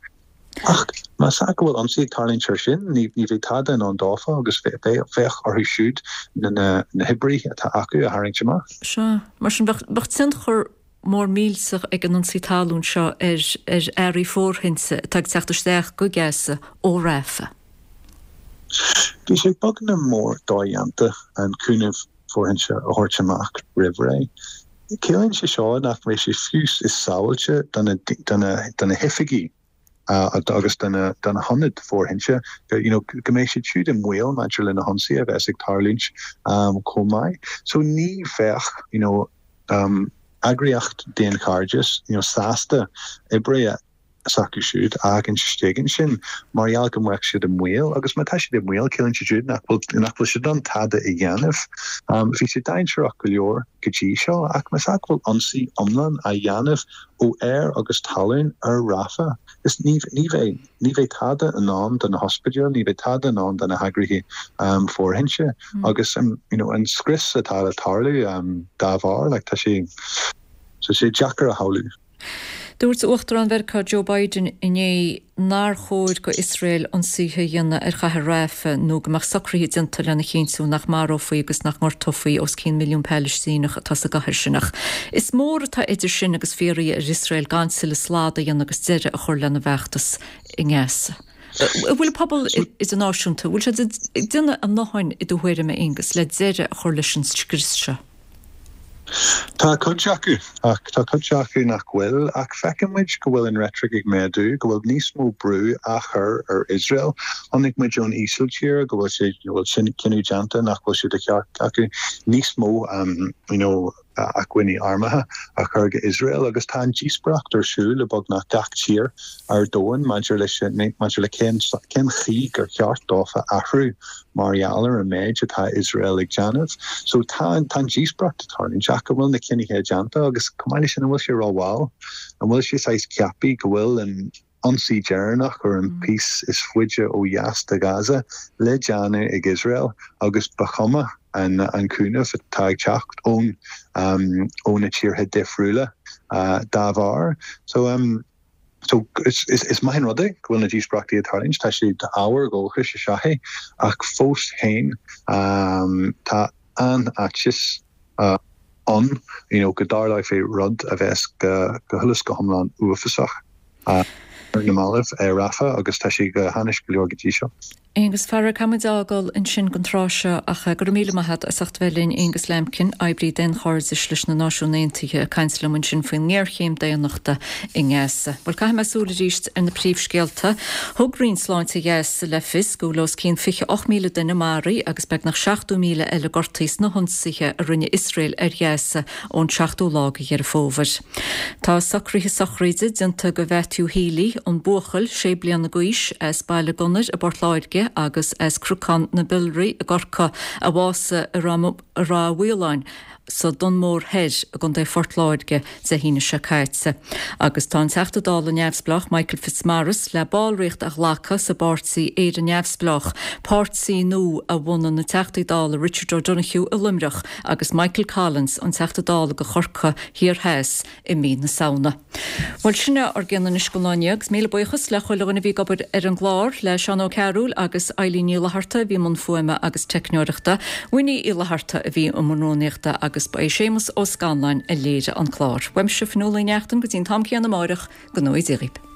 Ach más ea go bhfuil ionsaí ag tarlúint air sin, ní bheidh tada in ann dófa agus bheadh orthu siúd na hoibrithe atá acu a tharraingt amach. Sea. Mar sin, bheadh tionchar mór millteach ag an ionsaí talún seo ar earraí fóirithinte atá ag teacht isteach go Gaza ó Rafah. Bhí sé beagnach mór dodhéanta an cúnamh fóirithinte a thabhairt amach roimh ré. Ciallaíonn sé seo nach mbeidh sé fiú is sábháilte do na hoifigí agus do na hionaid fóirithinte, you know, go mbeidh siad siúd i mbaol maidir le na hionsaithe a bheas ag tarlúint chomh maith. So ní bheadh, you know, eagraíocht daonchairdis, you know, sásta oibrithe s'acu siúd a fhágaint istigh ansin mar gheall go mbeadh siad i mbaol agus má tá siad i mbaol ciallaíonn sé siúd nach bhfuil nach bhfuil siad in ann tada a dhéanamh. Bhí sé dainséarach go leor go dtí seo ach más ea go bhfuil ionsaí iomlán á dhéanamh ó aer agus talún ar Rafah is ní ní bheidh ní bheidh tada in ann do na hospidéil, ní bheidh tada in ann do na heagraithe fóirithinte agus you know an scrios atá le tarlú dá bharr like tá sé tá sé deacair a shamhlú. Dúirt Uachtarán Mheiriceá Joe Biden inné nár chóir go Iosrael ionsaithe a dhéanamh ar chathair Rafah nó go mbeadh socruithe déanta lena chinntiú nach marófaí agus nach ngortófaí os cionn milliún Palaistíneach atá sa gcathair sin. Ach is mór atá idir sin agus fiafraí ar Iosrael gan tuilleadh slad a dhéanamh agus deireadh a chur lena bhfeachtas i nGaza. An bhfuil an pobal idirnáisiúnta, an bhfuil siad ag déanamh a ndóthain i do thuairim, a Aonghus, le deireadh a chur leis an scrios seo? Tá cuid acu, ach tá cuid acu nach bhfuil. Ach feiceann muid go bhfuil an reitric ag méadú, go bhfuil níos mó brú á chur ar Iosrael. Chonaic muid ón Ísiltír go bhfuil sé, go bhfuil cinneadh déanta nach bhfuil sé de cheart acu níos mó you know. acmhainní armtha a chur go Iosrael agus tá an díospóireacht ar siúl i beagnach gach tír ar domhan maidir leis maidir le cén cén chaoi gur cheart dófa athrú mar gheall ar an méid atá Iosrael ag déanamh. So tá tá an díospóireacht ag tarlúint ach an bhfuil na cinnithe déanta agus chomh maith leis sin an bhfuil sé rómhall? An bhfuil sé saghas ceaptha go bhfuil an ionsaí deireanach ar an piece is faide ó dheas de Ghaza le déanamh ag Iosrael agus ba chuma an an cúnamh atá ag teacht ón ó na tíortha difriúla dá bharr. So so is is maith an rud é go bhfuil na díospóireachtaí ag tarlúint, tá sé ábhar dóchais is ea é ach fós féin tá an-fhaitíos ann you know go dtarlóidh rud a bheas go go huile is go hiomlán uafásach ar na mallaibh i Rafah agus tá sé go hainnis go leor go dtí seo. Aonghus, a fheara, caithfidh muid a fhágáil ansin don tráth seo ach go raibh míle maith agat as ucht bheith linn, Aonghus Lambkin, oibrí daonchairdis leis na Náisiúin Aontaithe, ag caint liom ansin faoin ngéarchéim daonnachta i nGaza. Bhuel, caithfidh mé súil arís ar na príomhscéalta. Thug Roinn Sláinte Ghaza le fios go bhfuil os cionn 28,000 duine maraithe agus beagnach 70,000 eile gortaithe sna hionsaithe a rinne Iosrael ar Ghaza ón seachtú lá de Dheireadh Fómhair. Tá socruithe sochraide déanta do Mhatthew Healy, an buachaill sé bliana d'aois as Baile Gunnair i bPort Láirge agus as Cnocán na Biolraí i gCorcaigh, a bhásaigh i Ráth Mhaoláin sa Dún Mór Thoir i gContae Phort Láirge Dé hAoine seo caite. Agus tá an Teachta Dála neamhspleách Michael Fitzmaurice le ballraíocht a ghlacadh sa bpáirtí Éire Neamhspleách, páirtí nua a bhunaigh na Teachtaí Dála Richard O'Donoghue i Luimneach agus Michael Collins, an Teachta Dála do Chorcaigh Thiar Theas i mí na Samhna. Bhuel, sin é ár gcion anois don lá inniu agus míle buíochas le chuile dhuine a bhí ag obair ar an gclár, le Seán Ó Cearúil agus Eilín Ní Fhlatharta a bhí i mbun fuaime agus teicneoireachta, Winnie Uí Fhlatharta a bhí i mbun rúnaíochta agus ba é Séamus Ó Scanláin a léirigh an clár. Uaimse, Fionnuala Ní Neachtain, go dtí an t-am céanna amáireach, go ngnóthaí Dia dhaoibh.